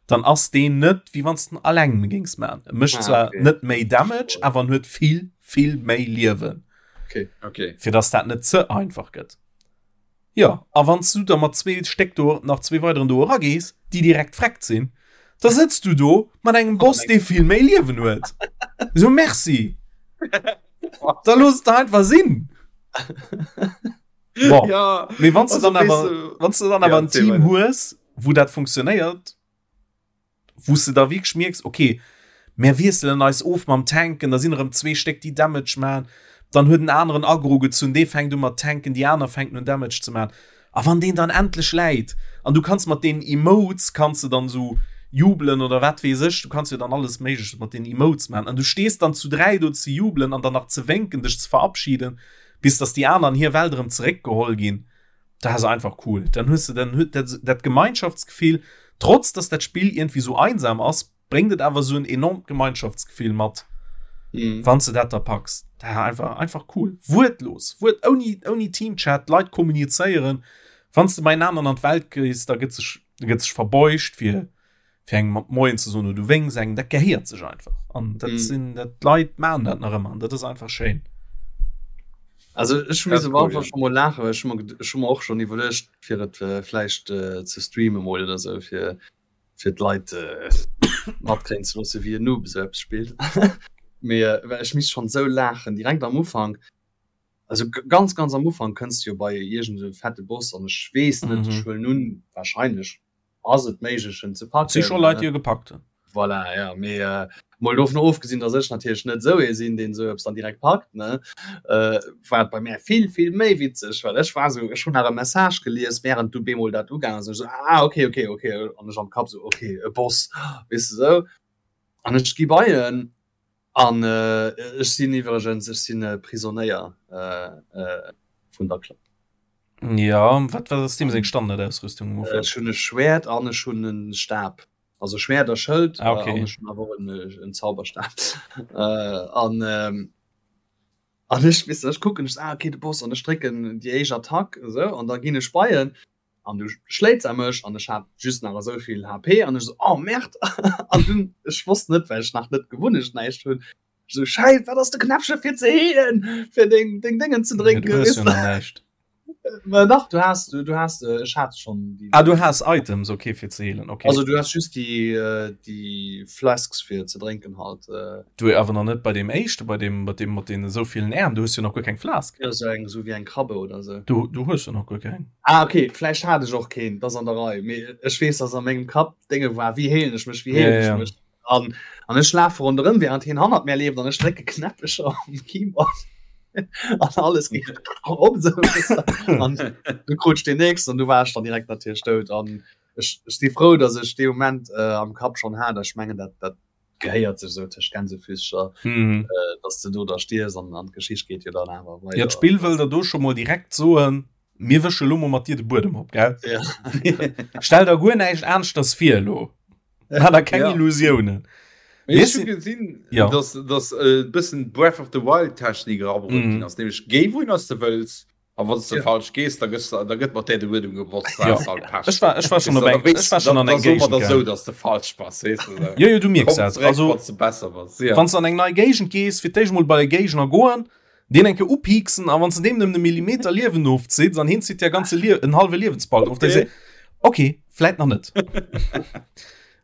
dann ass deen net wéi wann s den alleng géings man. E mécht ah, zwar okay. net méi Damage, awer en huet vill vill méi Liewen.
Okay. Okay.
Fir dass dat net ze einfach gëtt. Ja, a wann du da mat zwee Stéck do nach zwee weideren do eragees, déi direkt freckt sinn, da sëtzt du do mat engem Boss, dee vill méi Liewen huet. So merci. Da looss et einfach sinn. Bon.
Ja,
Mee wann du dann awer wann du dann awer ja, en Team hues, wou dat funktionéiert, wou du da wierklech mierks, okay, mir wiesselen eis of mam Tanken, da sinn erëm zwee Stéck, déi Damage man, dann huet en aneren Aggro gezunn, dee fänkt u mat tanken, déi aner fänken un Damage ze man. A wann deen dann endlech läit an du kanns mat deenen Emotes kanns du dann sou jubelen oder wat weess ech, du kanns jo dann alles Méigleches mat deenen Emotes man an du stees dann zu 3 do ze jubelen an dann nach ze wénken, dech ze verabschieden, bis dass déi aner an hir Welt erëm zeréckgeholl ginn, dat ass einfach cool. Dann hues de dann huet dat dat Gemeinschaftsgefill, trotz dass dat Spill iergendwéi sou einsam ass. bréngt et awer esou en enormt Gemeinschaftsgefill mat, mhm. wann du dat da packs. Da einfach, einfach cool. Wuertlos, Wuert, ouni, ouni Teamchat, d'Leit kommunizéieren. Wann du beienaner an d'Welt gees, da gëtt sech, gëtt sech verbeugt fir, fir engem mat Moien ze soen oder du wénks engem, dat gehéiert sech einfach. An dat mm. sinn dat d'Leit maachen dat nach ëmmer an dat ass einfach schéin.
Also ech muss am Anfang schon mal lachen, well ech hu mer ech hu mer och schon iwwerluecht fir et äh, vläicht äh, ze streamen mol oder sou fir fir d'Leit äh, matkréien ze loosse wéi en Noob esou eppes spillt. Mee äh, well ech misst schon sou laachen direkt am Ufank. Also ganz ganz am Ufank kënns du jo bei iergend e fette Boss an ech weess net, ech huelen un wahrscheinlech ass et méiglech en ze packen.
Si scho Leit déi e gepackt hunn.
Voilà, ja, mee äh, mol dovun ofgesinn, datt ech natierlech net esou ee sinn, deen esou eppes dann direkt packt, ne, äh, war et bei mär vill, vill méi witzeg, well ech war esou, ech hunn nach e Message gelies, während du bemol dat ugaangen ass, an ech esou, ah, okay, okay, okay, an ech am Kapp esou, okay, e Boss, weess de esou, an ech gi bei en, an äh, ech sinn iwwregens, ech sinn e Prisonéier äh, äh, vun der Klapp.
Ja, wat wat ass deem seng Standardausrüstung
am Ufank? Ech hunn e Schwäert an ech hunn e Stab. Also Schwäert a Schëld
ah, okay.
an ech hunn awer och en, en Zauberstab. Äh, an ähm, an ech, weess de, ech kucken, ech so, ah, okay, de Boss, an ech drécken déi éischt Attack, esou, an da ginn ech bei en an du schléits a mech an ech hat just nach esou vill HP an ech so, oh Merde! An dunn, ech wosst net, well ech nach net gewunnecht näischt hunn, so Scheiss, wat ass de Knäppche fir ze heelen, fir deng, deng Déngen ze
Ja, du
drénken,
hues
weess
jo
de?
nach näischt.
Mä dach, du has, du has, ech hat schonn déi.
Ah, du has Items, okay, fir ze heelen, okay.
Also du has just déi, déi Flasks fir ze drénken halt.
Du awer nach net bei deem éischte, bei deem, bei deem mat deenen esou villen Äerm, du hues jo nach guer keng Flask.
Jo, sou eng, sou wéi eng Krabbe oder sou.
Du, du hues jo nach guer keng.
Ah, okay, vläicht hat ech och keen, dat ass an der Rei, mee ech weess, dass a mengem Kapp d'Dénge war, wéi heelen ech mech, wéi
Ja,
heelen ech
ja.
mech? An, an ech lafe ronderëm, während hien hannert mär leeft an ech drécke Knäppecher um Keyboard an alles geet op esou, weess de. An du krut ech deen nächsten an du war ech dann direkt natierlech dout. An ech, ech si frou, dass ech dee Moment äh, am Kapp schonn hat, ech mengen, dat, dat gehéiert sech esou tëscht Gänsefüßcher,
Mhm.
äh, dass de do da stierfs an, an d'Geschicht geet jo dann awer
Ja,
weider.
d'Spill wëll der do scho mol direkt soen, mir wësche lo mol mat dir de Buedem op, gell?
Ja.
Stell der guer näischt aneschters vir elo. Hat er keng
Ja.
Illusiounen.
Mee ech hu gesinn,
Ja.
dass, dass e bëssen Breath of the Wild Technik erabruet
Mhm.
ginn ass, nämlech géi wouhin ass de wëlls a wann s de
Ja.
falsch gees, da gëss da gëtt mat där de Buedem gebotzt, da
Ja.
has de halt Pech.
Ech war, ech war schon
Weess
op
de, da
eng,
weess
ech war schon
da,
an
da
eng
soe mer
Géigend
der sou,
gaangen.
dass de falsch bass, weess de sou.
Jo, jo, du mierks
Komm
dat.
zeréck,
Also,
wann s de besser bass, ja.
wann s de an eng nei Géigend gees, fir d'éischt mol bei de Géigner goen, deen eng Kéier upieksen a wann s de deem nëmmen e Millimeter Liewen ofzitt an hien zitt dir ganze Lie en hallwe Liewensbalken of, da
Okay.
se okay, vläit nach net.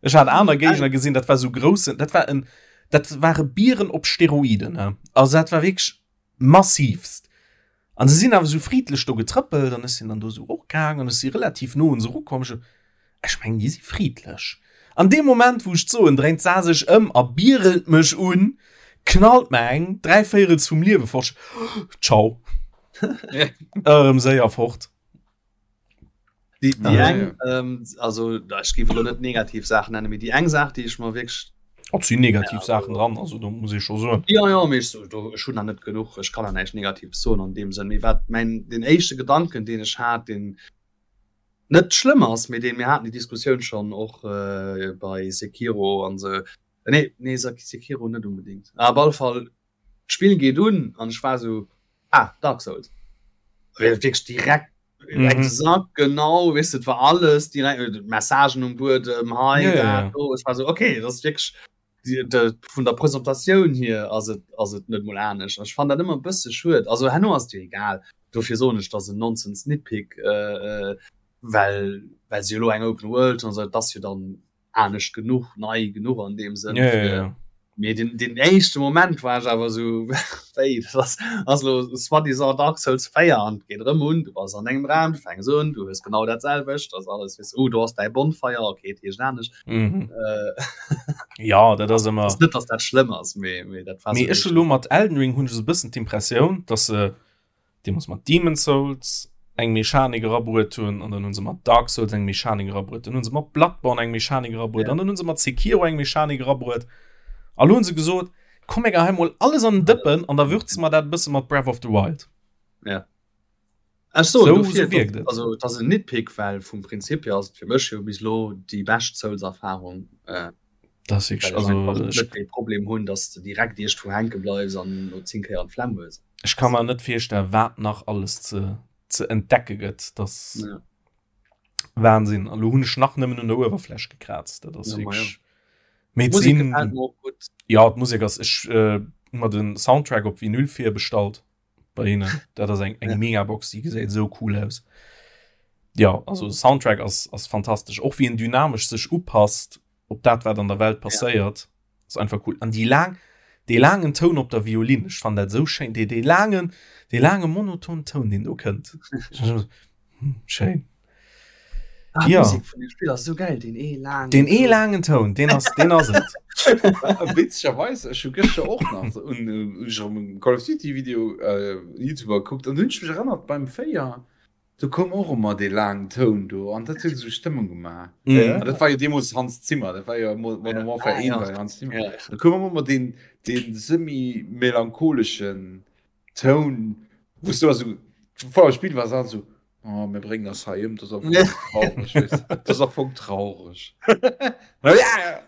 Ech hat aner Géigner gesinn, dat war sou groussen, dat war en, dat ware Bieren op Steroiden, ne? Also dat war wierklech massivst. An se sinn awer sou friedlech do getrëppelt an ech sinn dann do sou och gaang an ech si relativ no un se erukomm. Ech, ech mengen, déi si friedlech. An deem Moment, wou ech d'soen, dréint d'Sa sech ëm a bierelt mech un, knallt mer eng dräivéierels vum Liewe fort. Ciao. Erëm séier fort.
Déi, déi
Ah,
eng, ähm, also ech géif elo net negativ Saachen nennen, mee déi eng Saach, déi ech mer wierklech
Och sinn negativ Saachen dran, also do muss ee scho soen.
Ja, ja, mee ech so, do, ech hunn nach net genuch, ech kann nach näischt Negatives soen an deem Sënn. Mee wat mäin, den éischte Gedanken, deen ech hat, deen net schlëmm ass, mee deen, mir haten déi Diskussioun schonn och äh, bei Sekiro an sou, nee, nee, Sekiro net unbedingt, ah, op alle Fall, D'Spill geet un an ech war sou, ah, Dark Souls. Wierklech direkt mhm. exakt genau, weess de, war alles direkt äh, Messagen um Buedem, hei, ja, ja, ja. do. Ech war so, okay, das ist wirklich die, de, vun der Presentatioun hier ass et, ass et net mol anescht. Ech fand dat ëmmer e bësse schued. Also herno ass et jo egal. Dofir soen ech, dass en Nonsense Nitpick, äh, äh, well, well se jo lo eng Open World an so, dat ass jo dann anescht genuch, nei genuch an deem Sënn.
Ja, ja, ja.
Mee den, den éischte Moment war ech awer sou, wéi, dat ass, ass lo soi-disant Dark Souls 4 an et geet erëm un, du bass an engem Raum, du fänks un, du hues genau dat selwecht, ass alles, weess, oh, do ass däi Bonfire, okay, et heescht anescht.
Mhm.
Äh,
Ja, dat ass ëmmer.
ass net, dass dat schlëmm ass, mee, mee dat war
Mee
sou
ech hu lo mat Elden Ring hunn ech esou e bëssen d'Impressioun, dass se deemools mat Demon's Souls eng Mechanik erabruet hunn an dann hunn se mat Dark Souls eng Mechanik erabruet, dann hunn se mat Bloodborne eng Mechanik erabruet ja. an dann hunn se mat Sekiro eng Mechanik erabruet. A lo hunn se gesot, komm mir geheien mol alles an den Dëppen an da würze mer dat e bësse mat Breath of the Wild.
Ja. Ech soen,
So,
dofir,
so wierkt et.
Also, dat ass en Nitpick, well vum Prinzip hier ass et fir mech jo bis elo déi bescht Souls-Erfarung. Äh.
Das
ist
also
net de Problem hunn, dass du direkt Icht vu hänke bleifs an no 10 Kéier an Flemm hues.
Ech kann mer net virstellen, wat nach alles ze, ze entdecke gëtt. Das ja. Wahnsinn. An lo hunn ech nach nëmmen un der Uewerfläch gekrazt. Dat ass ja, wirklich... Ja. Mee
Musik gefällt mir och gutt.
Ja, d'Musek ass ech äh, hu mer den Soundtrack op Vinyl virbestallt bei hinnen. Dat ass eng eng ja. Megabox, déi gesäit esou cool aus. Ja, also Soundtrack ass ass fantastesch. Och wéi en dynamesch sech upasst op dat wat an der Welt passéiert. Ja. Ass einfach cool. An déi laang dee laangen Toun op der Violin, ech fannen dat esou schéin, dee dee laangen dee laange monoton Toun deen do kënnt. Hm, schéin.
Ah,
Ja.
Musik vun dem Spill ass so geil, den ee laangen
Den ee laangen Toun, deen ass deen ass et.
Witzegerweis, ech hu gëschter och nach un äh, ech hu e Call of Duty Video äh, YouTuber gekuckt an du hunn ech mech erënnert beim 4 do koum och ëmmer dee laangen Toun do an dat huet esou Stëmmung gemaach.
Mhm.
An dat war jo deemools Hans Zimmer, dat war jo Mo- Modern Warfare
Ah,
1
ja.
war jo Hans Zimmer.
Ja.
Da koum ëmmer deen deen semi-melancholeschen Toun, wou s du also vor dem Spiel war an so oh, mir bréngen ass hei ëm, das ass traurig, weißt du. Das ass am Fong traurig. ja, ja.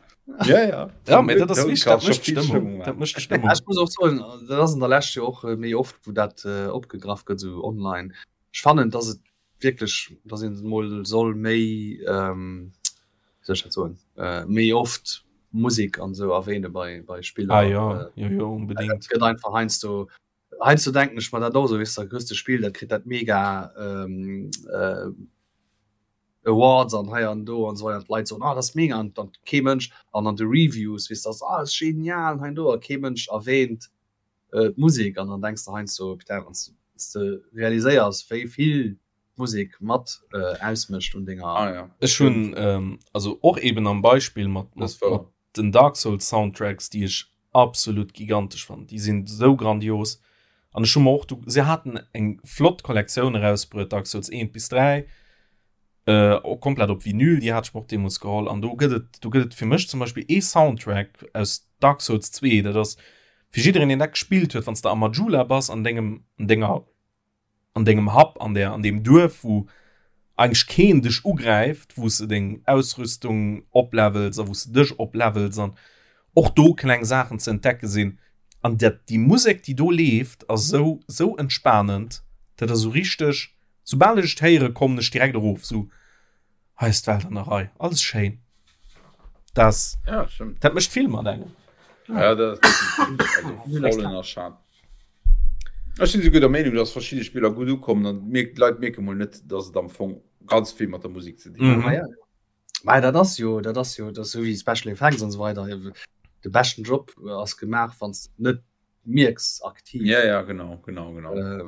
Ja, ja.
Ja, mee dat ass wichtig, dat mécht Stëmmung. Dat mécht Stëmmung.
Ech muss och soen, dat ass an der Lescht jo och äh, méi oft, wou dat äh, opgegraff gëtt, sou online. Ech fannen, dass et wierklech, dass een mol soll méi, ähm, wéi soll ech dat soen, äh, méi oft Musek an sou erwähne bei, bei Spiller.
Ah ja,
Äh,
jo, jo, unbedingt.
Dat gëtt einfach heiansdo, heiansdo denken ech mer dat och sou, weess de, da kriss de Spill, dat kritt dat mega ähm, äh, Awards an hei an do an sou weider, an d'Leit soen, ah, dat ass mega, an dann kee Mënsch, an an de Reviews, weess de, ass, ah, ass genial, hei an do, a kee Mënsch erwähnt äh, d'Musek, an dann denks de heiansdo, putain, wann s de realiséiers, wéi vill d'Musek mat äh, ausmécht un denger.
Ah, ja.
Ech hunn ähm, also och eben am Beispill mat, mat,
Das war-
mat den Dark Souls Soundtracks, déi ech absolut gigantesch fannen. Déi sinn sou grandios. An ech hu mer och du se haten eng flott Kollektioun erausbruet, Dark Souls 1 bis 3, äh, och komplett op Vinyl, déi hat ech mer och deemools geholl. An do gëtt et, do gëtt et fir mech zum Beispill ee Soundtrack aus Dark Souls 2, dat ass fir jiddereen, deen dat gespillt huet, wann s de am Majula bass an dengem, an denger an dengem Happ, an der, an deem Duerf, wou eigentlech keen dech ugräift, wou s de deng Ausrüstung oplevels a wou s de dech oplevels an och do kleng Saachen ze entdecke sinn. An dat, déi Musek, déi do leeft, ass esou, esou entspanend, dat ass esou richteg, soubal ech et héiere kommen ech direkt erof, esou, hei ass d'Welt an der Rei, alles schéin. Das,
Ja, stimmt.
dat mécht vill mat engem.
Ja, dat ass definitiv, also voll ënnerschat. Ech sinn souguer der Meenung, dass verschidde Spiller gutt ukommen an d'Leit mierke mol net, dass et am Fong ganz vill mat der Musek ze dinn huet.
Mhm.
Ja. Mä dat ass jo, dat ass jo, dat ass sou wéi Special Effects an esou weider. De beschten Job ass gemaach, wann s de net mierks aktiv.
Ja, ja, genau, genau, genau.
Äh,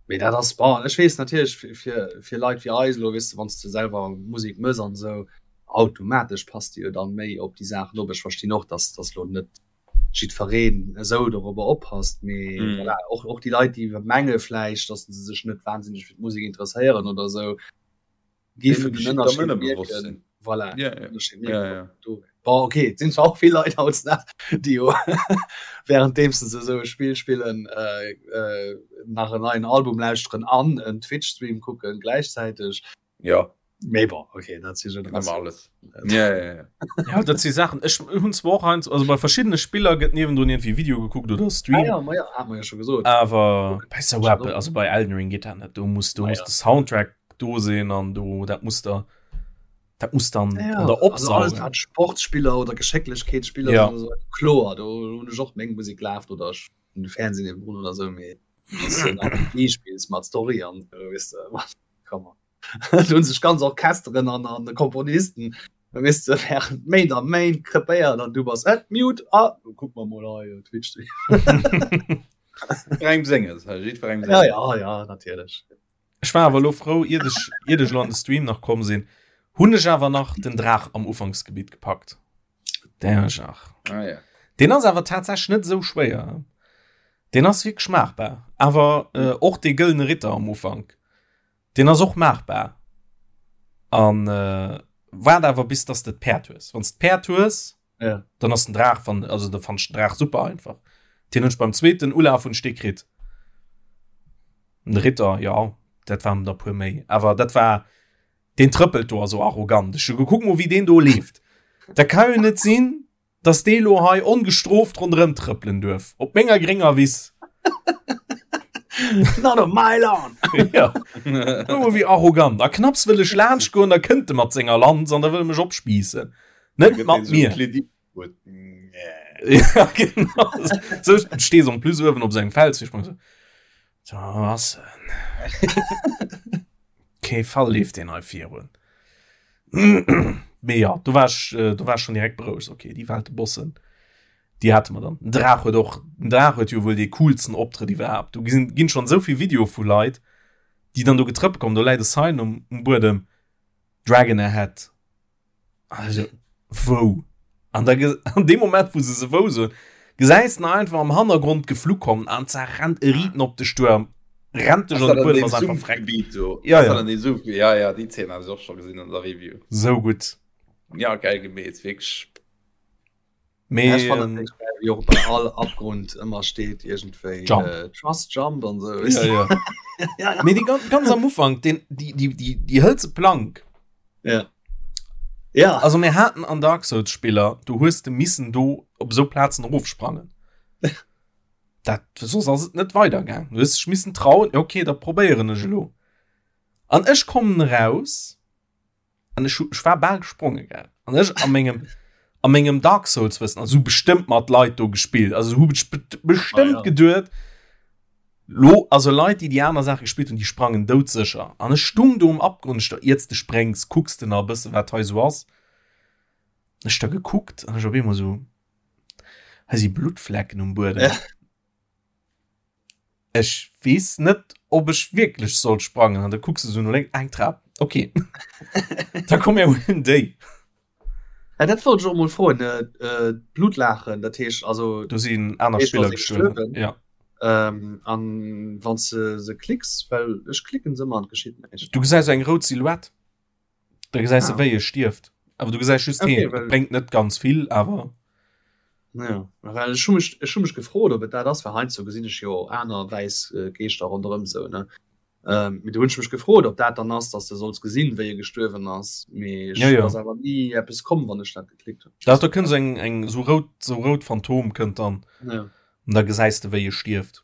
mee dat ass, bon, ech weess natierlech fir, fir, fir Leit wéi eis elo, weess de, wann s de selwer Musek mëss an esou, automatesch passt de jo dann méi op déi Saachen op. Ech verstinn och, dass, dass elo net jiddfereen esou dorobber oppasst, mee mm. voilà, och, och déi Leit, déi menge vläicht, dass se sech net wahnsinneg fir d'Musek interesséieren oder esou, géifen den Ënnerscheed mierken. Voilà,
ja, ja.
Ënnerscheed mierken,
ja, ja.
Do. Bon, okay, et sinn zwar och vill Leit hautdesdaags, déi jo währenddeems se esou e Spill spillen, äh, äh, nach en neien Album lauschteren an en Twitch-Stream kucken gläichzäiteg.
Ja.
Mee bon, okay, dat si
Generatioun. Alles. Ja, ja, ja.
Ja, dat si Saachen. Ech hunn zwar och heiansdo, also bei verschiddene Spiller gëtt niewendrun iergendwéi Video gekuckt oder Stream.
Ah, ja, ma ja, hat mer jo scho gesot.
Awer bei sou eppes, also bei Elden Ring geet dat net. Do muss, do
Ah,
muss
ja.
de Soundtrack do sinn an do, dat muss der, dat muss dann
Ja,
an der
also alles
opsaugen.
wat Sportspiller oder Geschécklechkeetsspiller
Ja.
sinn oder sou, kloer, do hunn ech och meng Musek lafen oder ech hunn de Fernseh niewendrun oder sou, mee wann s de en RPG spills mat Story an sou, weess de, come on. Do hunn sech ganz Orchesteren an an Komponisten weess de während Méint a Méint krepéiert an du bass et mute ah kuck mer mol hei Twitch.
Jiddwerengem senges, hei, jiddwerengem
Ja
senges.
ja ja natierlech.
Ech war awer elo frou, iert ech, iert ech elo an de Stream nach komm sinn, hunn ech awer nach den Draach am Ufanksgebitt gepackt. Der Jach.
Ah, ja.
Deen ass awer tatsächlech net esou schwéier. Deen ass wierklech maachbar. Awer äh, och dee gëllene Ritter am Ufank. Deen ass och maachbar. An äh, waart awer bis dass de d'Päerd hues. Wann s d'Päerd hues,
ja.
dann ass den Draach van, also da fand ich den Draach super einfach. Den hunn ech beim zweeten Ulaf hunn ech dee kritt. Den Ritter, ja, dat waren der puer méi. Awer dat war den trëppelt do ass so arrogant. Ech hu gekuckt mol wéi deen do leeft. Dat kann jo net sinn. Dass dee lo hei ongestrooft ronderëm trëppelen duerf op menger grénger Wiss.
Not on my lawn!
Ja. Oh, wéi arrogant. A knapps wëll ech laanscht goen, da kënnt e mat senger Lanz an da wëll e mech opspiissen. Net mat mir. Ja, genau. So, stees en plus uewen op sengem Fels. Ich so, so was? Kee Fall leeft deen hei virun. Mee ja, do war ech, äh, do war ech schon direkt berouegt. Okay, déi Welte Bossen, déi hate mer dann. Den Draach huet och, den Draach huet jo wuel dee coolsten Optrëtt iwwerhaapt. Do gesinn, ginn schon esou vill Video vu Leit, déi dann do getrëppelt kommen. Do läit e Sign um, um Buedem, Dragon ahead. Also, wou? An da an dem Moment, wou se se wou soen, gesäis de einfach am Hannergrond geflu kommen an za rennt e Riten op de Stuerm, rennt dech an de Buedem, ass einfach freck.
Ja, ja. Ja, ja, déi Zeen hat ech och scho gesinn an der Review.
Sou gutt.
Ja, geil gemeet, wierklech.
Mee, ja, ich fand ähm, wie och bei all Abgrund ëmmer steet iergendwéi
Jump.
Äh, Trust Jump an sou.
Ja, ja.
ja, ja.
Mee déi ganz, ganz am Ufank, den, déi, déi, déi, déi hëlze Plank.
Ja. Ja.
Also mir haten an Dark Souls Spiller, du hues de missen do op sou Plazen erofsprangen. Dat soss ass et net weidergaang. Du hues dech missen trauen, okay, da probéieren ech elo. An ech kommen eraus An ech, ech war bal gesprongen, gell. An ech a mengem, a mengem Dark Souls Wëssen, also bestëmmt mat Leit do gespillt, also hu ech bestëmmt ah, ja. geduet, lo, also Leit, déi déi aner Saache gespillt hunn, déi sprangen doudsécher. An ech stung do um Abgrund, ech da, iert de spréngs, kucks de nach e bësse wat hei sou ass. Ech da gekuckt an ech op eemol sou, hei si Bluttflecken um Buedem. Ja. Ech weess net, ob ech wierklech soll sprangen. An da kucks de sou no lénks, eng Trap, okay. Da komm mir huelen déi.
Ja, dat wollt ech och mol froen. Äh, d'Blutlachen, dat heescht also.
Do sinn aner Spiller gestuerwen. Ja.
Ähm, an wann s de se klicks, well ech klicken se ëmmer an et geschitt näischt.
Du gesäis eng rout Silhouette. Da gesäis du, ah. wéi e stierft. Awer du gesäis just okay, heen. Well... Bréngt net ganz vill, awer.
Ja, well ech hu mech, ech hu mech gefrot, ob et dat ass, well heiansdo gesinn ech jo aner wäiss äh, Geeschter ronderëm sou, ne? Ähm, mee do hunn ech mech gefrot, ob dat dann ass, dass de solls gesinn, wéi e gestuerwen ass. Mee ech
ja, ja.
ass awer ni eppes komm, wann ech dat geklickt hunn.
Da, da kënnt eng, eng sou rout, sou rout Phantom kënnt dann.
Ja.
Und da gesäis de, wéi e stierft.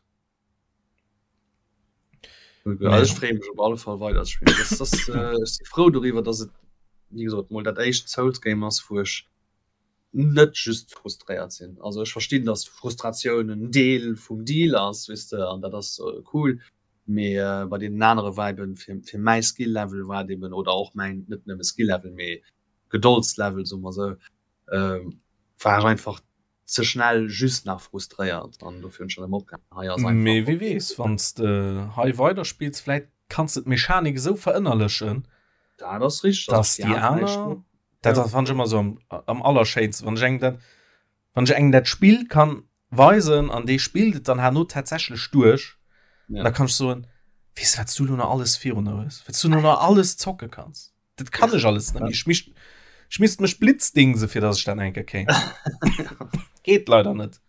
Ja, ech freeë mech op alle Fall weider ze spillen. Das, das, äh, ech si frou doriwwer, dass et wéi gesot mol dat éischt Souls Game ass, wou ech net just frustréiert sinn. Also ech verstinn, dass Frustratioun en Deel vum Deal ass, weess de, an dat ass äh, cool. Mee äh, bei deenen anere war eben fir, fir mäi Skill Level war et eben oder och mäin net nëmme Skill Level, mee Gedoldslevel, soe mer sou, äh, war ech einfach ze schnell just nach frustréiert an dofir hunn ech dann erëm opgehalen. Hei ass einfach
Mee wie weess, wann s de hei weiderspills, vläit kanns de d'Mechanik esou verënnerlechen,
Dat ass richteg,
dass déi aner, dat ass fannt ech ëmmer esou am, am allerschéinsten, wann ech engem dat, wann ech engem dat Spill kann weisen an dee spillt et dann herno tatsächlech duerch,
Ja.
da kann ech soen, weess de wat s du elo nach alles virun der hues, wat s du elo nach alles zocke kanns. Dat kann ech alles net méi. Ech misst, ech misst mech blitzdingse fir dass ech dat enke kéint. Geet leider net.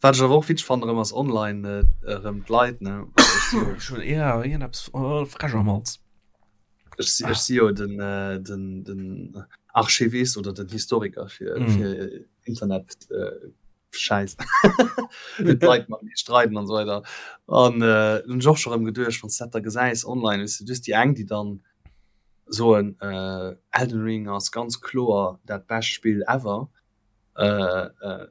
Wat ech awer och witzeg fannen erëm ass online erëm d'Leit ne.
Ech hunn ja iergendeppes oh, frech am Hals.
Ech si ech si jo den äh, den den Archivist oder den Historiker fir
Mm.
fir Internet äh, Schäiss. D'Leit mat mir streiden an esou weider. An äh, hunn ech och scho rëm geduecht, wann s dat da gesäis online, weess de, du hues déi eng, déi dann soen, äh, Elden Ring ass ganz kloer dat bescht Spill ever. Äh, äh,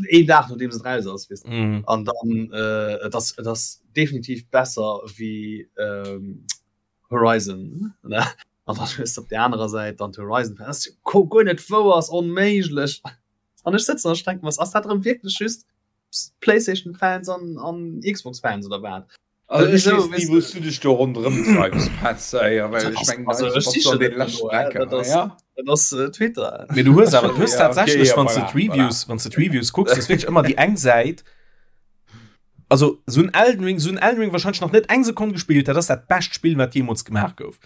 een Dag nodeems et raus ass, weess de.
Mm.
An dann, äh, et ass, et ass definitiv besser wéi ähm, Horizon, ne? An dann hues de op där anerer Säit dann d'Horizon, dat ass jo guer net wouer, ass onméiglech. An ech sëtzen an ech denken, was ass dat erëm wierklech just PlayStation Fans an, an Xbox Fans oder wat?
Also ech
Wieso,
weess ni,
weess
wou s du dech do ronderëm treibs, Petz, ey, well ech mengen,
also
heiansdo
ech
bass du
sichen
an
net
deene leschten
no, äh,
Drecker,
dat ass,
ja?
dat ass äh, Twitter.
Mee du hues awer, du hues
Ja, okay,
tatsächlech,
ja,
wann s du
voilà, voilà.
d'Reviews, wann s du d'Reviews kucks, ass wierklech ëmmer déi eng Säit, also sou en Elden Ring, sou en Elden Ring wahrscheinlech nach net eng Sekonn gespillt, dat ass dat bescht Spill, wat jeemools gemaach gouf.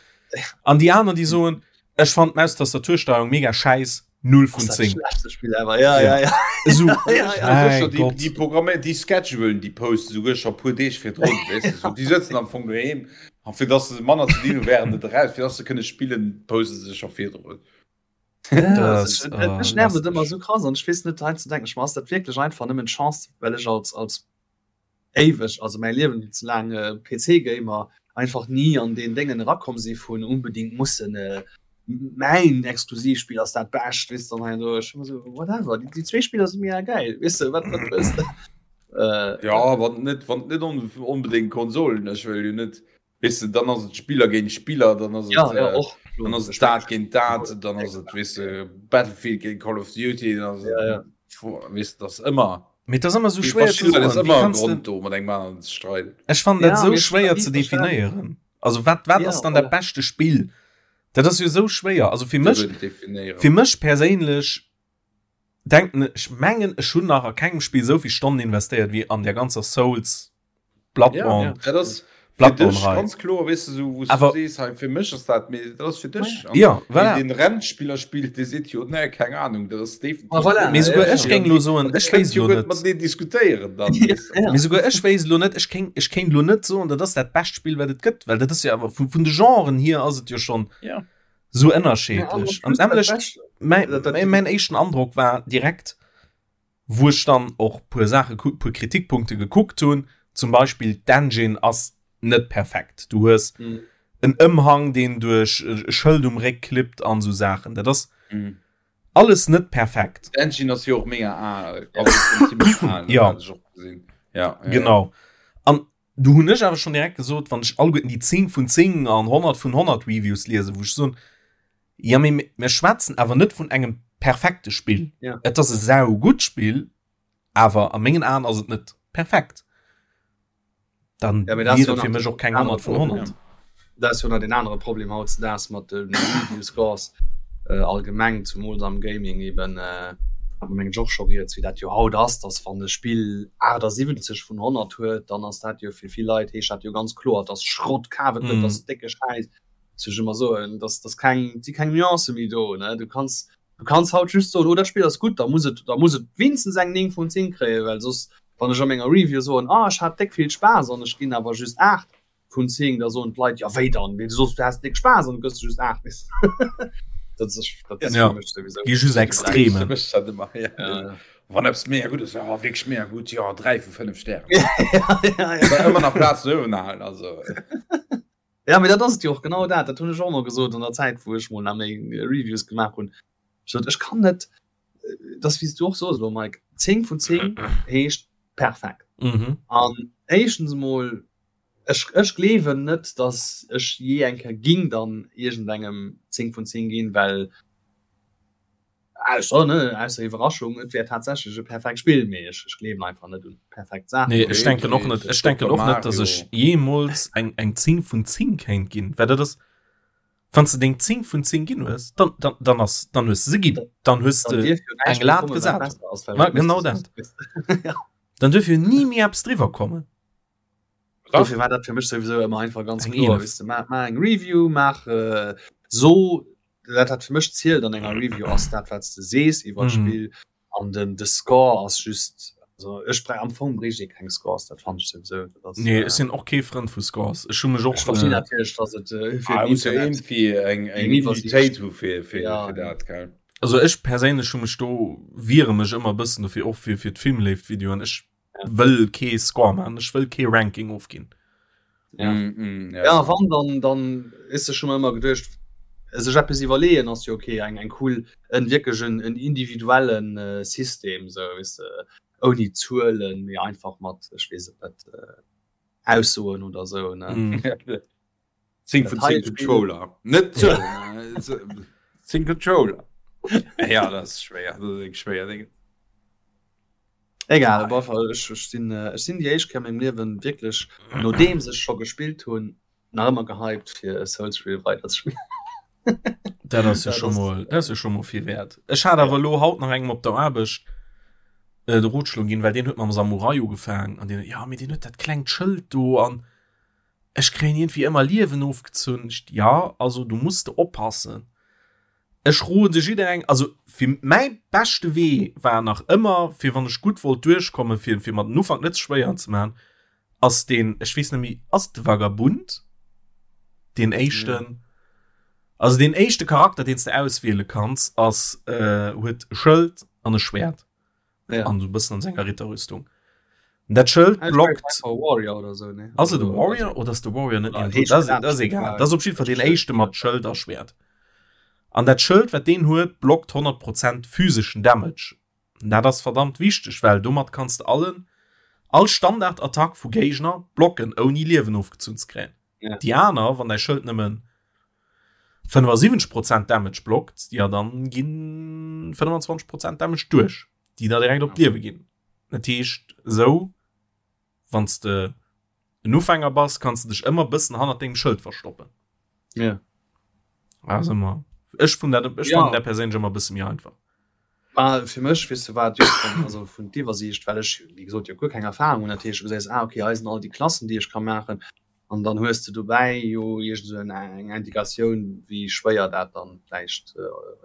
An déi aner, déi soen, ech fannen d'Maustastatursteuerung mega schäiss, 0 vun 10.
Schlechteste Spiel ever. Ja, ja, ja.
So,
ja, ja.
Sicher, die,
Gott.
die Programme, die schedulen, die posten souguer scho puer Deeg virdrun, weess de, so. Die sëtzen am Fong doheem a fir dass se manner ze dinn hu während et eraus, fir dass se kënne spillen, poste se scho virdrun.
Ja, das, äh, Mech nervt et ëmmer sou krass an ech weess net hei ze denken, ech ass dat wierklech einfach nëmmen d'Chance, well ech als als éiweg, also mäi Liewen ze laang äh, PC-Gamer einfach ni an deen Déngen erakomm si vun unbedingt mussen äh, mäin Exklusivspill ass dat bescht, weess de, an hei an do. Ech hu sou whatever, déi, déi zwee Spiller si mir geil, weess de, wat wat wëlls de?
Äh, ja, wann net wann net on, onbedingt Konsolen, ech wëll jo net Weess de, dann ass et Spiller géint Spiller, dann ass et,
ja, ja, och,
dann ass et dat géint dat, dann ass et, weess de, Battlefield géint Call of Duty, dann ass et,
ja, ja.
weess de, dat ass ëmmer.
Mee et ass ëmmer esou schwéier
ze soen. Et ass ëmmer e Grond do, mat engem aneren ze streiden.
Ech fannen dat esou schwéier ze definéieren. Also wat, wat ass dann dat beschte Spill? Dat ass jo esou schwéier. Also fir mech, fir mech perséinlech denken ech, mengen ech hunn nach a kengem Spill esou vill Stonnen investéiert wéi an där ganzer Souls
Bloodborne. Ja, dat ass
Bloodborne
Rei. Ganz kloer weess du sou wou
Awer,
du sees hei fir mech ass dat mee dat ass fir dech.
Ja, voilà.
Ween den Rennspiller spillt dee seet jo nee keng Ahnung dat ass definitiv.
Ah, voilà.
Mee souguer ech géing lo soen ech wéisst lo net.
Mat deen diskutéieren dann.
Mee souguer ech wéisst lo net ech kéint ech kéint lo net soen dat ass dat bescht Spill wat et gëtt well dat ass jo awer vun vun de Genren hier ass et jo schonn
ja.
sou ënnerscheedlech. An nämlech mäin mäin éischten Androck war direkt wou ech dann och puer Saache puer Kritikpunkte gekuckt hunn, zum Beispill d'Engine ass net perfekt. Du hues mm. en Ëmhang, deen duerch e Schëld um Réck klippt an sou Saachen. Dat ass mm. alles net perfekt.
D'Engine ass jo och mega al.
Ja.
Ja, ja.
Genau. An du hunn ech awer schon direkt gesot, wann ech alleguerten déi 10 vun 10 an 100 vun 100 Reviews liesen, wou ech soen, ja mee mir schwätzen awer net vun engem perfekte Spill.
Ja.
Et ass e sau gutt Spill, awer a mengen Aen ass et net perfekt. Dann
ja, wier
et fir mech och keng 100 vun 100.
Ja. Dat ass jo nach den anere Problem hautdesdaags mat de Review Scores äh, allgemeng, zumools am Gaming eben. Äh, hat mer mengen ech och scho rieds, wéi dat jo haut ass, dass wann e Spill 78 vun 100 huet, dann ass dat jo fir vill Leit, heescht dat jo ganz kloer, et ass Schrott, kaf et net, et ass décke Schäiss. Soll ech ëmmer soen, dass dass keng, et si keng Nuancë méi do, ne? Du kanns, du kanns haut just soen, oh dat Spill ass gutt, da muss et, da muss et wéinstens eng 9 vun 10 kréien, well soss, wann ech a menger Review soen, ah ech hat déck vill Spaass an ech ginn awer just 8 vun 10, da soen d'Leit, jo wéi dann, wéi du soss du has déck Spaass an du gëss just 8, weess de. Dat ass, dat ass
Ja,
fir mech souwisou.
gi just Extremen.
Mécht dat ëmmer, ja.
Ja.
Wann eppes mega gutt ass, ja wierklech mega gutt, jo 3 vu 5 Stären.
Ja, ja, ja.
Ëmmer nach Plaz no uewen halen, also.
Ja, mee dat ass et jo och, genau dat. Dat hunn ech och ëmmer gesot an der Zäit, wou ech mol nach méi Reviews gemaach hunn. Ech sot, ech kann net, dat ass wéi s du och sos elo, Mike, 10 vun 10 heescht perfekt.
Mhm.
An éischtens emol, ech, ech gleewen net, datt ech jee eng Kéier ging dann iergendengem 10 vun 10 ginn, well Ausser, ne, ausser Iwwerraschung, et wär tatsächlech e perfekt Spill, mee ech, ech gleewen einfach net un perfekt Saachen.
Nee, ech denken och net, ech denken och net, dass ech jeemools eng, eng 10 vun 10 kéint ginn, well dat ass, wann s de deng 10 vun 10 ginn hues, dann, dann, dann ass, dann hues de se ginn, dann hues
Dann
de
dierf jo näischt
eng
méi
Lat
kommen, wat
gesat.
besser ass, well
Ma
dat misst
genau
de
dat.
soss. Ja.
Dann duerf jo ni méi eppes driwwer kommen.
Dofir war dat fir mech souwisou ëmmer einfach ganz
Eng
kloer,
11.
weess de, maach, maach eng Review, maach, so dat wat fir mech zielt an enger Review ass dat wat s de sees iwwer d'Spill an den de Score ass just also ech brei am Fong bréicht ee keng Scores dat fannen ech souwisou dat ass
Nee ech sinn och kee Frënd vu Scores ech hu mech och
ech verstinn natierlech dass et fir
ah,
den
muss jo
Internet
irgendwie eng eng
eng Iwwersiicht
Unitéit hu fir fir
ja
fir dat gell
also ech perséinlech hu mech do wiere mech ëmmer e bëssen dofir och fir fir d'Filmléift-Videoen ech wëll kee Score man ech wëll kee Ranking ofginn.
Ja.
Mm, mm,
ja.
ja.
wann dann dann is schon immer geduercht sech etwas iwwerleeën ass jo okay eng eng cool en wierklech en, en individuellen äh, System so weißt du, ouni Zuelen mee einfach mat ech weess et net äh, Aussoen oder so ne
Mm.
10 vun 10 Controller net 10 Controller ja das ist schwer das ist schwer Ding.
Egal, op alle Fall, ech, ech sinn, äh, ech sinn déi éischt Kéier a mengem Liewen wierklech, nodeems ech scho gespillt hunn, nach ëmmer gehypt fir e Souls-Spill weiderzespillen.
Dat ass jo
Dat
scho
ass-
mol, dat ass jo scho mol vill wäert. Ech hat awer elo haut nach engem op der Aarbecht äh, de Rotschlo ginn, well deen huet mam Samurai ugefaangen an deen, ja, mee deen huet dat klengt Schëld do an ech kréien iergendwéi ëmmer Liewen ofgezunn. Ech, ja, also du muss de oppassen. Ech rode jidderengem, also fir mäi beschte Wee war nach ëmmer, fir wann ech gutt wollt duerchkommen, fir fir mer den Ufank net ze schwéier ze maachen, ass deen, ech weess net méi, ass et de Vagabund, deen éischten? Also deen éischte Charakter, deen s de auswiele kanns, ass äh, huet e Schëld an e Schwert.
Ja.
An so bëssen an senger Ritterrüstung. Dat Schëld
Ah,
blockt.
Warrior oder so, ne?
Ass et e Warrior oder ass de Warrior net?
Ah,
Dat ass, dat ass egal. Dat ass op jeden Fall deen éischte mat Schëld a Schwert. An dat Schëld, wat deen huet, blockt 100 Prozent physeschen Damage. Dat ass verdammt wichteg, well domat kanns de allen all Standardattack vu Géigner blocken, ouni Liewen ofgezunn ze kréien.
Ja.
Déi aner, wann däi Schëld nëmmen 75 Prozent Damage blockt, ja dann ginn 25 Prozent Damage duerch, déi der direkt op d'Liewe ginn. Dat heescht esou, wann s de en Ufänger bass, kanns de dech ëmmer bëssen hannert dengem Schëld verstoppen.
Ja.
Also ëmmer. Ech fun dat, ech
Ja.
fannen dat perséinlech ëmmer bësse méi einfach.
Ma fir mech, weess de wat, jo, also vun d'Iwwersiicht, well ech, wéi gesot, jo guer keng Erfahrung hunn, dat heescht, du gesäis, ah okay, hei sinn all déi Klassen, déi ech ka maachen, an dann hues de dobäi jo iergend esou eng Indikatioun, wéi schwéier dat dann vläicht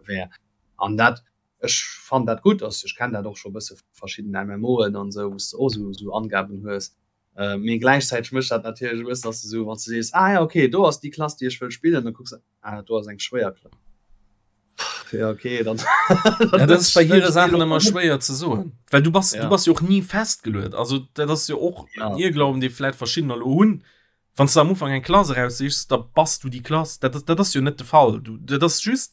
wär. An dat, ech fannen dat gutt, also ech kennen dat och scho e bësse vu verschiddenen MMOen an esou, wou s de och esou esou Angaben hues. Mee gläichzäiteg mécht dat natierlech e bëssen, dass de esou, wann s de sees, ah ja okay, do ass déi Klass, déi ech wëll spillen, da kucks de, ah do ass eng schwéier Klass. Ja okay, dann.
Ja, dat ass bei hire Saachen ëmmer schwéier ze soen, well du bass,
Ja.
du bass jo och ni festgeluet. Also dat ass jo och
Ja.
en Irrglauben, dee vläit verschiddener elo hunn. Wann s de am Ufank eng Klass eraussichs, da bass du déi Klass. Dat ass, dat ass jo net de Fall. Du, dat ass just,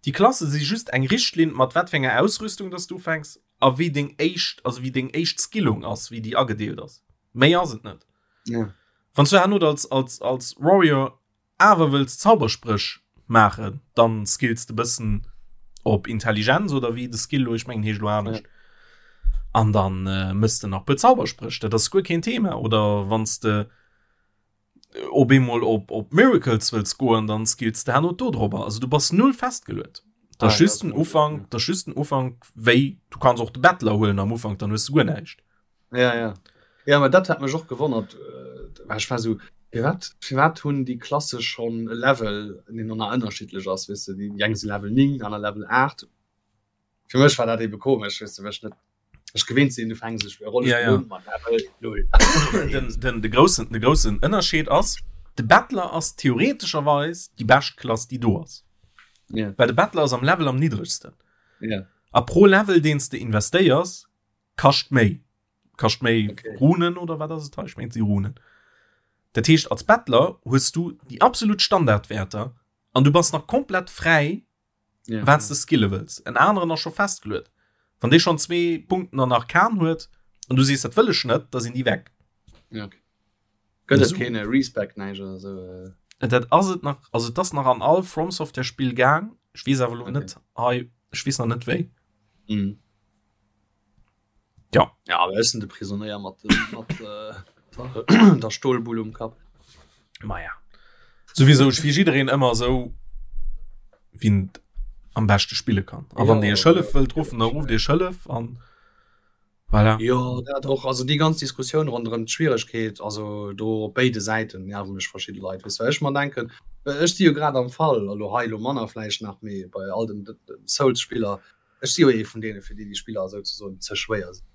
déi Klasse si just eng Richtlinn, mat wat fir enger Ausrüstung dass du ufänks a wéi deng éischt, also wéi deng éischt Skillung ass, wéi déi agedeelt ass. Méi ass et net.
Ja.
Wann s du herno als, als, als Warrior awer wëlls Zauberspréch maachen, dann skills de bëssen op Intelligenz oder wéi de Skill lo, ech mengen heescht lo anescht. An dann äh, mëss de nach puer Zauberspréch, dat ass guer keen Thema. Oder wann s de op eemol op, op Miracles wëlls goen, dann skills de herno do drobber. Also du bass null festgeluet. Dat ass
Ah, ja,
just
das
den Ufank, dat ass just den Ufank, wéi du kanns och de Bettler huelen am Ufank, dann hues du guer näischt.
Ja, ja. Ja, ma dat hat mech och gewonnert. Äh, ech war so, firwat, firwat hunn déi Klasse schonn e Level, deen dann nach ënnerschiddlech ass, weess de, déi eng si Level 9, aner Level 8. Fir mech war dat ebe komesch, weess de, well ech net ech gewinnt sinn, du fänks e Rollespill
Ja, ja.
un mat Level 0.
Den, den, de groussen, de groussen Ënnerscheed ass, de Bettler ass theoretescherweis déi bescht Klass, déi do ass.
Ja.
Well de Bettler ass am Level am niddregsten.
Ja.
A pro Level, deen s de investéiers, kascht méi kascht méi
okay.
Runen oder wat ass et ich mein, sie Runen dat heescht als Bettler hues du die absolut Standardwerter an du bass nach komplett frei
ja.
wat du skille wëlls en aneren ass scho festgeluet wann dee schon zwee Punkten an Arkan huet an du sees dat wëll ech net da sinn die weg
ja, okay. Gëtt et keen Respec näischt oder sou?
Äh, dat ass et nach also das nach an all From Software Spiel gaang ich wees awer lo
okay.
net hei ich wees nach net wéi
mhm.
Ja.
Ja, awer ech sinn de Prisonéier mat dem, mat äh, der Stolbull um Kapp.
Ma ja. Souwisou, ech fir jiddereen ëmmer esou, wien et am beschte spille kann. A wann Dir iech hëllef wëllt ruffen, da rufft Iech hëllef an voilà.
Jo, dat och. Also déi ganz Diskussioun ronderëm d'Schwieregkeet, also do op béide Säiten nerve mech verschidde Leit, weess well ech mer denken, ech si jo grad am Fall, elo hei elo manner vläicht nach, mee bei all den Souls-Spiller, Ech si jo ee vun deene fir déi déi Spiller souzesoen ze schwéier sinn.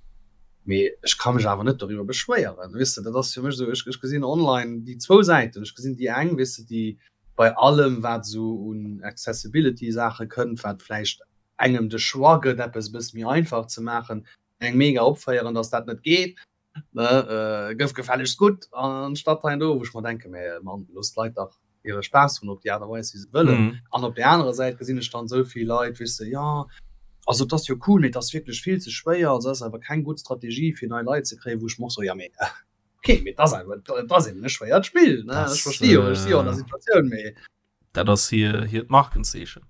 Mee ech ka mech awer net doriwwer beschwéieren, weess de. Dat ass fir mech esou, ech gesinn online déi zwou Säiten. Ech gesinn déi eng, weess de, déi bei allem wat esou un Accessibility-Saache kënnt, wat vläicht engem de Choix gëtt eppes e bësse méi einfach ze maachen, eng mega opféieren, datt dat net geet. Ne, gëff gefällegst gutt anstatt hei an do, wou ech mer denken, mä Mann, looss d'Leit dach hire Spaass hunn op déi Aart a Weis, wéi se wëllen. An op där anerer Säit gesinn ech dann esou vill Leit, weess de, jo, also et ass jo cool, mee et ass wierklech vill ze schwéier, also et ass awer keng gutt Strategie, fir nei Leit ze kréien, wou ech mer och soen, jo, mee okay, mee et ass awer, et ass eben e schwéiert Spill, ne, ech versti jo, ech si jo an der Situatioun, mee.
Dat ass hir, hiert Markenzeechen.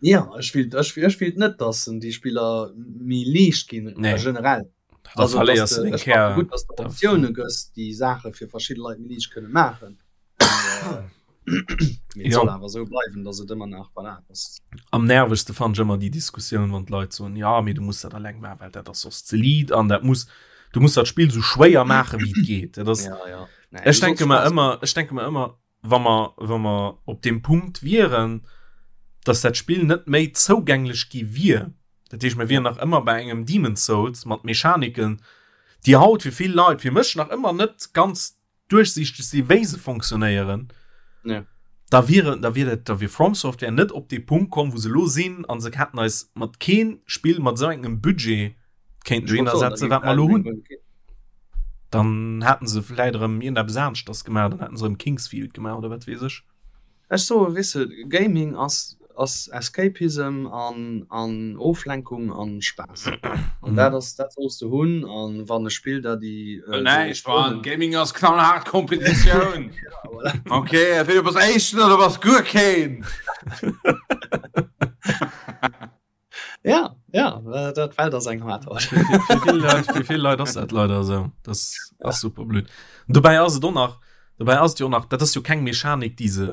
Ja, ech willt, ech, ech willt net, dass déi Spiller méi liicht ginn,
nee.
generell.
Da
also,
verléiers
dass
du den
ech
Kär.
Gutt, dass du Optioune gëss, déi Saache fir verschidde Leit méi liicht kënne maachen. Mee et
Ja.
soll awer esou bleiwen, dass et ëmmer nach voilà, dass
Am nervegste fand ech ëmmer déi Diskussioun, wann d'Leit soen, ja, mee du muss dat alleng maachen, well dat ass soss ze liit an dat muss, du muss dat Spill sou schwéier maachen, wéi et geet. Dat ass,
ja, ja. Nee,
ech
du
denke
solls
mer
Spaass
ëmmer, ech denke mer ëmmer, wa mer, wa mer op deem Punkt wieren, dass dat Spill net méi zougänglech gi wier, dat heescht, mer wieren nach ëmmer bei engem Demon's Souls mat Mechaniken, déi haut fir vill Leit, fir mech nach ëmmer net ganz duerchsiichteg si wéi se fonctionnéieren,
Ja.
Da wier, da wier dat, da wier From Software net op dee Punkt komm, wou se elo sinn, an se hätten eis mat keen Spill mat esou engem Budget kéinten dohinner setzen, wat mer elo hunn. Dann hätten se vläit erëm iergendeppes aneschters gemaach, dann hätten se erëm Kingsfield gemaach oder wat weess ech.
Ech soe, weess de, Gaming ass, ass Escapism an, an Oflenkung an Spaass. An dat ass, dat solls de hunn. An wann e Spill der déi.
Well näischt, Mann, Gaming ass knallhaart Kompetitioun. Okay, entweder du bass Éischten oder du bass guer keen.
Ja, ja, dat Welt ass eng hart haut.
Fir vill Leit, fir vill Leit ass dat leider esou. Dat ass super blöd. Dobäi ass et och nach, dobäi ass et jo och nach, dat ass jo keng Mechanik, déi se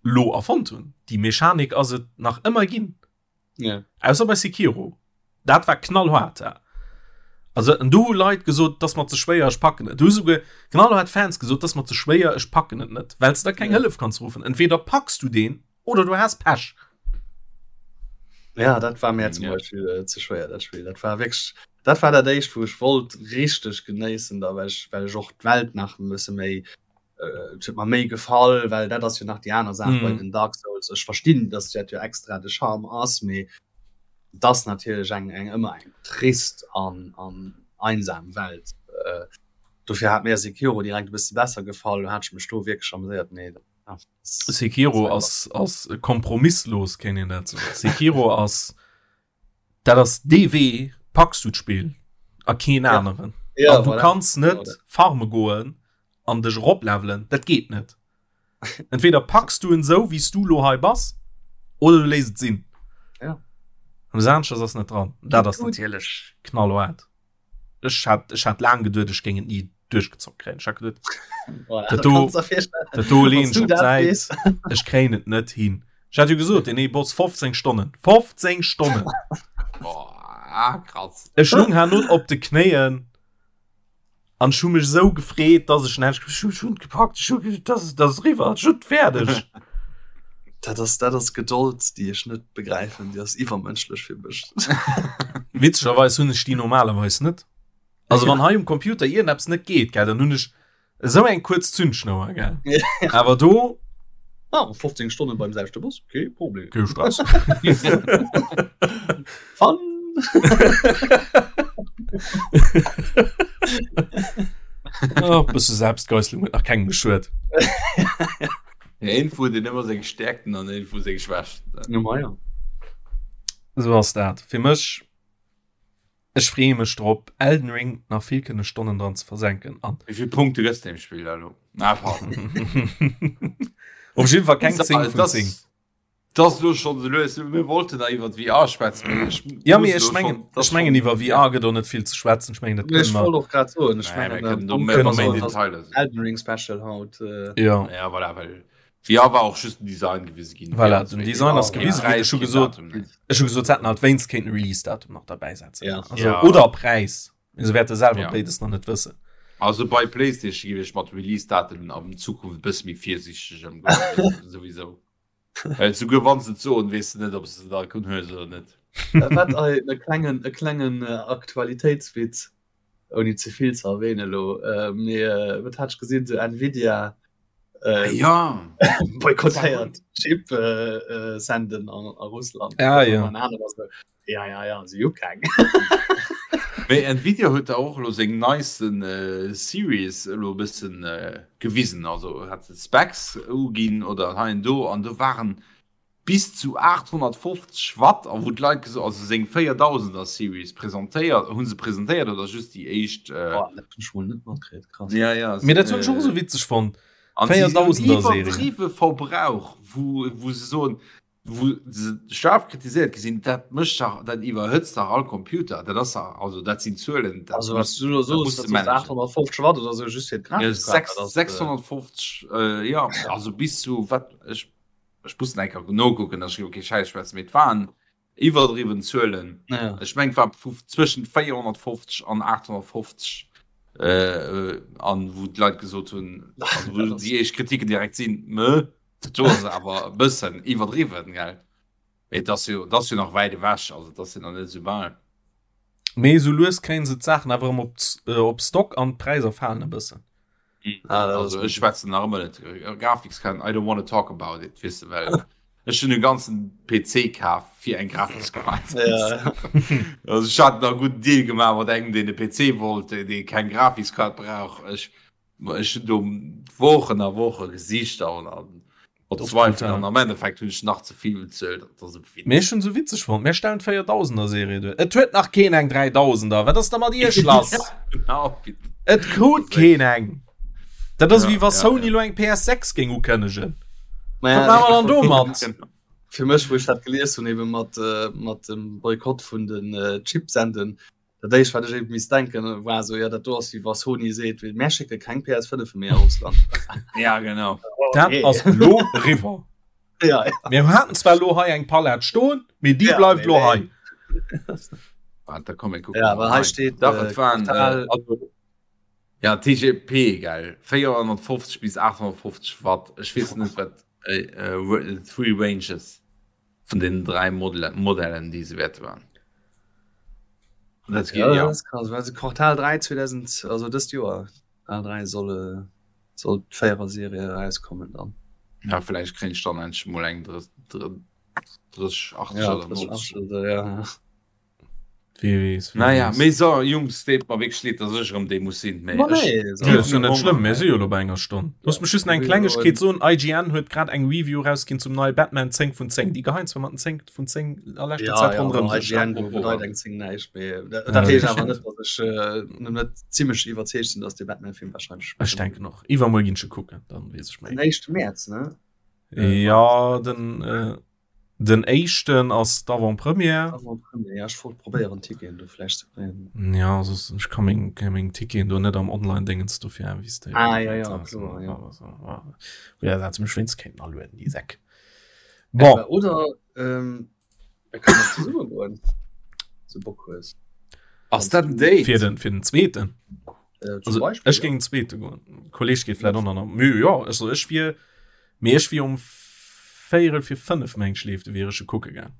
lo erfonnt hunn. Déi Mechanik ass et nach ëmmer ginn.
Ja.
Ausser bei Sekiro. Dat war knallhart. Ja. Also en do hu Leit gesot, dass mer ze schwéier, ech packen et. Du hu souguer knallhart Fans gesot, dass mer ze schwéier, ech packen et net, well s de da keng
Ja.
Hëllef kanns ruffen. Entweder packs du deen oder du has Pech.
Ja, dat war mir zum
Ja.
Beispiel äh, ze schwéier dat Spiel. Dat war wierklech dat war dat éischt, wou ech wollt richteg genéissen, da well ech well ech och d'Welt nach e bësse méi äh, et huet mer méi gefall, well dat ass jo nach déi aner Saach mm. bei den Dark Souls. Ech verstinn, dass dat jo extra de Charme ass, mee das natierlech eng eng ëmmer eng trist an an einsam Welt. Äh, dofir hat mir Sekiro direkt e bësse besser gefall, do hat ech mech do wierklech amuséiert. Nee,
ja, Sekiro ass ass kompromisslos, kéint een dat soen. Sekiro ass dat ass dee Wee, packs du d'Spill a keen
Ja.
aneren.
Ja,
An du
voilà.
kanns net
Genau dat.
farme goen an dech eroplevelen, dat geet net. Entweder packs du en sou wéi s du lo hei bass oder du léiss et sinn.
Ja.
Eppes aneschters ass net dran. Dat ass
Gut.
natierlech knallhaart. Ech hat, ech hat laang geduet, ech géing et ni duerchgezockt kréien. Ech hat geduet,
Voilà,
Dat
dat
do-
kannst du dir virstellen.
dat do leen
Wanns
ech
du
op
dat
d'Säit.
weess.
Ech kréien et net hin. Ech hat jo gesot, deen ee Boss 15 Stonnen. 15 Stonnen!
Boah, krass.
Ech lung herno op de Knéien an ech hu mech esou gefreet, dass ech en ech hu et gepackt, ech hu dat dat ass eriwwer, ech hunn et fäerdeg.
Dat ass, dat ass Gedold, déi ech net begräifen, déi ass iwwermënschlech fir mech.
Witzegerweis hunn ech déi normalerweis net. Also wann hei um Computer iergendeppes net geet, gell, dann hunn ech esou eng kuerz Zündschnouer, gell. Awer do
Ah, 15 Stonnen beim selwechte Boss, kee Problem.
Kee Stress.
Fun!
Oh, bësse Selbstgeißelung huet nach kengem geschuet.
Ja, een huet een ëmmer seng Stärkten an een huet seng Schwächten.
Ja, ma ja.
Esou ass dat. Fir mech Ech freeë mech drop Elden Ring nach vill kënne Stonnen dran ze versenken an.
Wéi vill Punkte gëss de dem Spill da lo? Ah, pardon.
Op jiddwer Fall keng 10 vun 10.
Dat ass lo schonn esou lues. Mir wollten da iwwer VR schwätzen, mee ech
Ja, mee
muss
ech
lo
mengen,
schonn, dat
ech mengen
schonn.
iwwer VR gëtt och net vill ze schwätzen. Ech mengen dat
Ech
kënne mer.
wollt och grad soen, ech
Nee, mir
mengen,
kënnen do
ähm,
méi
kënne
méi
mer.
Detailer sinn.
Elden Ring Special haut. Äh,
Ja.
Ja, voilà, well VR war och just den Design gewise ginn.
Voilà, den Design ass
Keen
gewise ginn.
Präis,
Ech hu
keen
gesot,
Datum, nee.
ech hu gesot, se hätten halt wéinst kéinten Release-Datum nach derbäi setzen.
Ja.
Also,
Ja.
Oder Präis. Mee se wäerte selwer
Ja.
béides nach net wëssen.
Also bei PlayStation géif ech mat Release-Daten an Zukunft e bësse méi virsiichteg ëmgoen, souwisou. Well souguer wann se et soen, weess de net, ob se se da kënnen huelen oder net.
Wat ei, e klengen, e klengen Aktualitéitswitz, ouni ze vill ze erwähnen elo, mee wat hat ech gesinn, esou Nvidia
Äh, ja.
boykottéiert Chip äh, äh, senden an, a Russland.
Ja, ja.
Ja, ja, ja, si hu keng.
Mee Nvidia huet da och elo seng neisten äh, Series elo e bëssen äh, gewisen. Also hat se Specs uginn oder hei an do an do waren bis zu 850 Watt a wou d'Leit geso also seng 4000er Series presentéiert hu se presentéiert oder just déi éischt äh,
Oh, dat hunn ech mol net matkritt, krass.
ja, ja,
Mee dat hunn ech och esou witzeg fonnt.
An si hunn
4000er Serie.
iwwerdriwwe Verbrauch, wou, wou se soen, wou se schaarf kritiséiert gi sinn, dat mécht dach, dat iwwerhëtzt dach all Computer, dat ass dach, also dat sinn Zuelen, dat
Also was
muss,
du da
dat
soos,
muss
dat
de
soos
managen.
850 Watt oder sou just fir
Ja,
d'Grafikkart, dat ass, äh,
650, äh, ja, also bis zu wat ech Ech muss nach eng Kéier nokucken, dass ech elo kee Schäiss schwätzen, mee et waren iwwerdriwwen Zuelen.
Ja.
Ech mengen, et war vu zwëschen 450 an 850, äh, an wou d'Leit gesot hunn, also wou déi éischt Kritiken direkt sinn, Mö, dat do ass awer e bëssen iwwerdriwwen, gell? Mee et ass jo, et ass jo nach wäit ewech, also et ass jo nach net esou bal.
Mee esou lues kréien se d'Saachen awer erëm op, op Stock an d'Präisser falen e bëssen.
Ah, also ech schwätzen nach ëmmer net Grafikskaart I don't wanna talk about it weess de well ech hunn e ganzen PC kaf fir eng Grafikskaart.
Ja.
Also ech hat nach e gudden Deal gemaach mat engem deen e PC wollt dee keng Grafikskaart brauch. Ech ech hunn do Wochen a Woche gesicht an an verzweifelt an am Endeffekt hunn ech nach ze vill bezuelt. Dat ass e Witz.
Mee ech hunn sou witzeg fonnt, mir stellen d'Véierdausender Serie duer. Et huet nach keen eng Dräidausender. Wat ass da mat iech lass?
Genau.
Et krut keen eng. Dat ass
Ja,
wéi wa
ja,
Sony
ja.
lo eng PS6 géing ukënnegen.
Ma
Wat
ja,
maache mer dann domat?
Genau.
Fir mech, wou ech dat gelies hunn, ebe mat, äh, mat dem Boykott vun den äh, Chipsenden, dat éischt, wat ech eben misst denken, war esou, ja, dat do ass wéi wa Sony seet, mär schécke keng PS5 méi a Russland.
Ja, genau.
Dat ass lo eriwwer.
Ja, ja.
Mir haten zwar lo hei eng Palett stoen, mee déi
Ja,
bleift
mee
lo
nee.
hei.
Warte, da komm, mir kucken
Ja,
mal
well hei
rein.
steet,
Dach,
äh,
et waren,
Quartal-
äh, also, ja, TGP, gell, 450 bis 850 Watt. Ech weess net, wat äh, äh, Three Ranges vun den 3 Modelle, Modellen, déi se wäerte waren. Dat
Ja,
geht, ja.
das ist krass. Also Quartal 3 2000, also dëst Joer, Quartal 3 soll, äh, soll d'Véierer-Serie erauskommen dann.
Ja, vielleicht krieg ich dann endlich mal eng 30, 80
Ja,
oder
30,
90.
80 oder, ja.
Wie weess, wie
Naja,
weess.
mee so, Jungs, deet mer wierklech leed, dass ech erëm dee muss sinn, mee
Ma
ech
nee,
Ja,
so.
ist jo net schlëmm, mir si jo lo bei enger Stonn. Looss mech just nach eng Klengegkeet soen, IGN huet grad eng Review rausginn zum neie Batman 10 vun 10. Déi geheien zwar mat den 10 vun 10 a leschter
Ja,
Zäit
ja,
ronderëm
ma
sech.
IGN
Apropos,
bedeit eng 10 näischt, mee dat
Ja,
dat heescht
dat
awer net, dass ech äh, net zimmlech iwwerzeegt sinn, dass de Batman-Film wahrscheinlech
Ech denken och. Iwwermuer ginn ech e kucken, dann weess ech
Den
méi.
1. Mäerz, ne?
Ja, den, äh, Den éischten ass d'Avant-Première.
Avant-Première, ja, ech wollt probéieren Ticketen do vläicht ze kréien.
Ja, soss ech ka meng, meng Ticketen do net am Online-Dingens dofir investéieren.
Ah, ja, ja, kloer, ja.
Ja, dat se mech wéinst kéinten alueden, déi Säck. Bon.
Oder ähm, mir kënnen och zesumme goen, wann du Bock hues.
Ass dat en Date?
Fir den, fir den zweeten.
Äh, zum
Also,
Beispiel,
ech
ja.
géing den zweete goen. Kolleg geet vläicht och nach. Mee jo, also ech wier. Mee ech wier um véierel fir 5 meng ech leeft, wier ech e kucke gaang.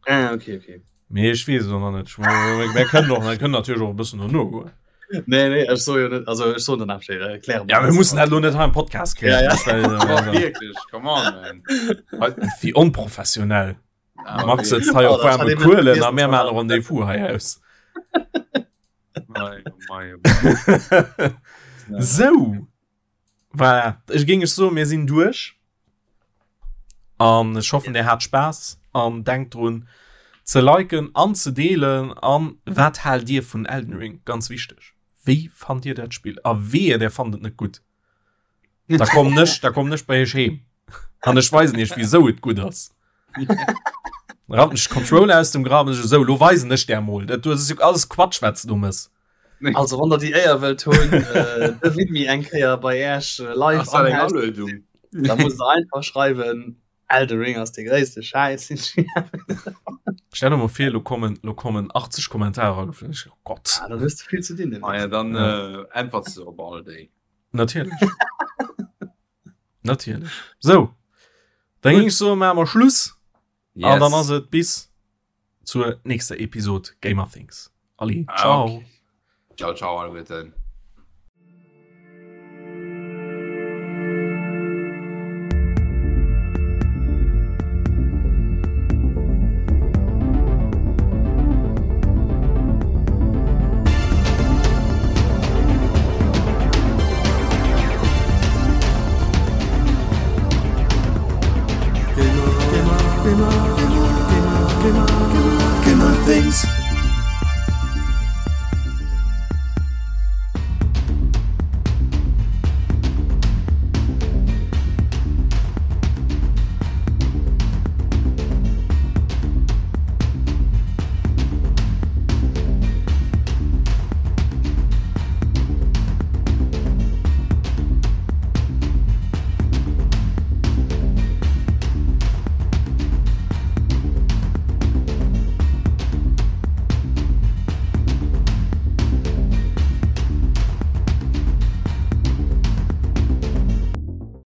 Ah, okay, okay.
Mee ech weess et och nach net. Mir kënnen och, mir kënnen natierlech och e bëssen dono goen.
Nee, nee, ech soe jo net, also ech soen danach Bescheed, äh, kläre
Ja, mir mussen dat elo net hei am Podcast klären.
Ja, ja.
Das wär-
Oh, wierklech, come on, man.
Wéi onprofessionell.
Ah,
Max
okay.
sëtzt hei op
Oh, dat hat
waarme
ee
Kuelen
net
a mir
vergessen.
maachen e Rendez-vous hei aus.
Mei, oh mei, oh mei.
Sou. Voilà. Ech géing ech soen, mir sinn duerch. An ech hoffen, dir hat Spaass an denkt drun ze liken an ze deelen. An wat haalt dir vun Elden Ring? Ganz wichteg. Wéi fannt dir dat Spill? A wehe, der fannt et net gutt. Da kommen ech, da kommen ech bei iech heem. An ech weisen iech, wisou et gutt ass. Rappen ech Controller aus dem Graben, ech esou, lo weisen ech der mol. Dat ass jo alles Quatsch, wat s du mëss.
Also wann der déi Éier wëllt hunn, äh, de Widmi eng Kéier bei Äech äh, live
Ass dat eng
am Haus,
Aluedung?
da musst der einfach schreiwen, Elden Ring ass de gréisste Schäiss. den ech je
Stell dir mal vir, lo kommen, lo kommen 80 Kommentarer ageflogen. Ich, oh Gott.
Ah, dann hues du vill ze dinn.
Ah ja, dann
Ja.
äh, äntwerts du op all déi.
Natierlech. Natierlech. So. Dann géing ech soen, maache mer Schluss. An dann ass et bis zur nächster Episode Gamer Things. Allez,
Ah,
ciao.
okay. Ciao, ciao, alleguerten.
Gamer, Gamer, Gamer, Gamer, Gamer, Gamer Things.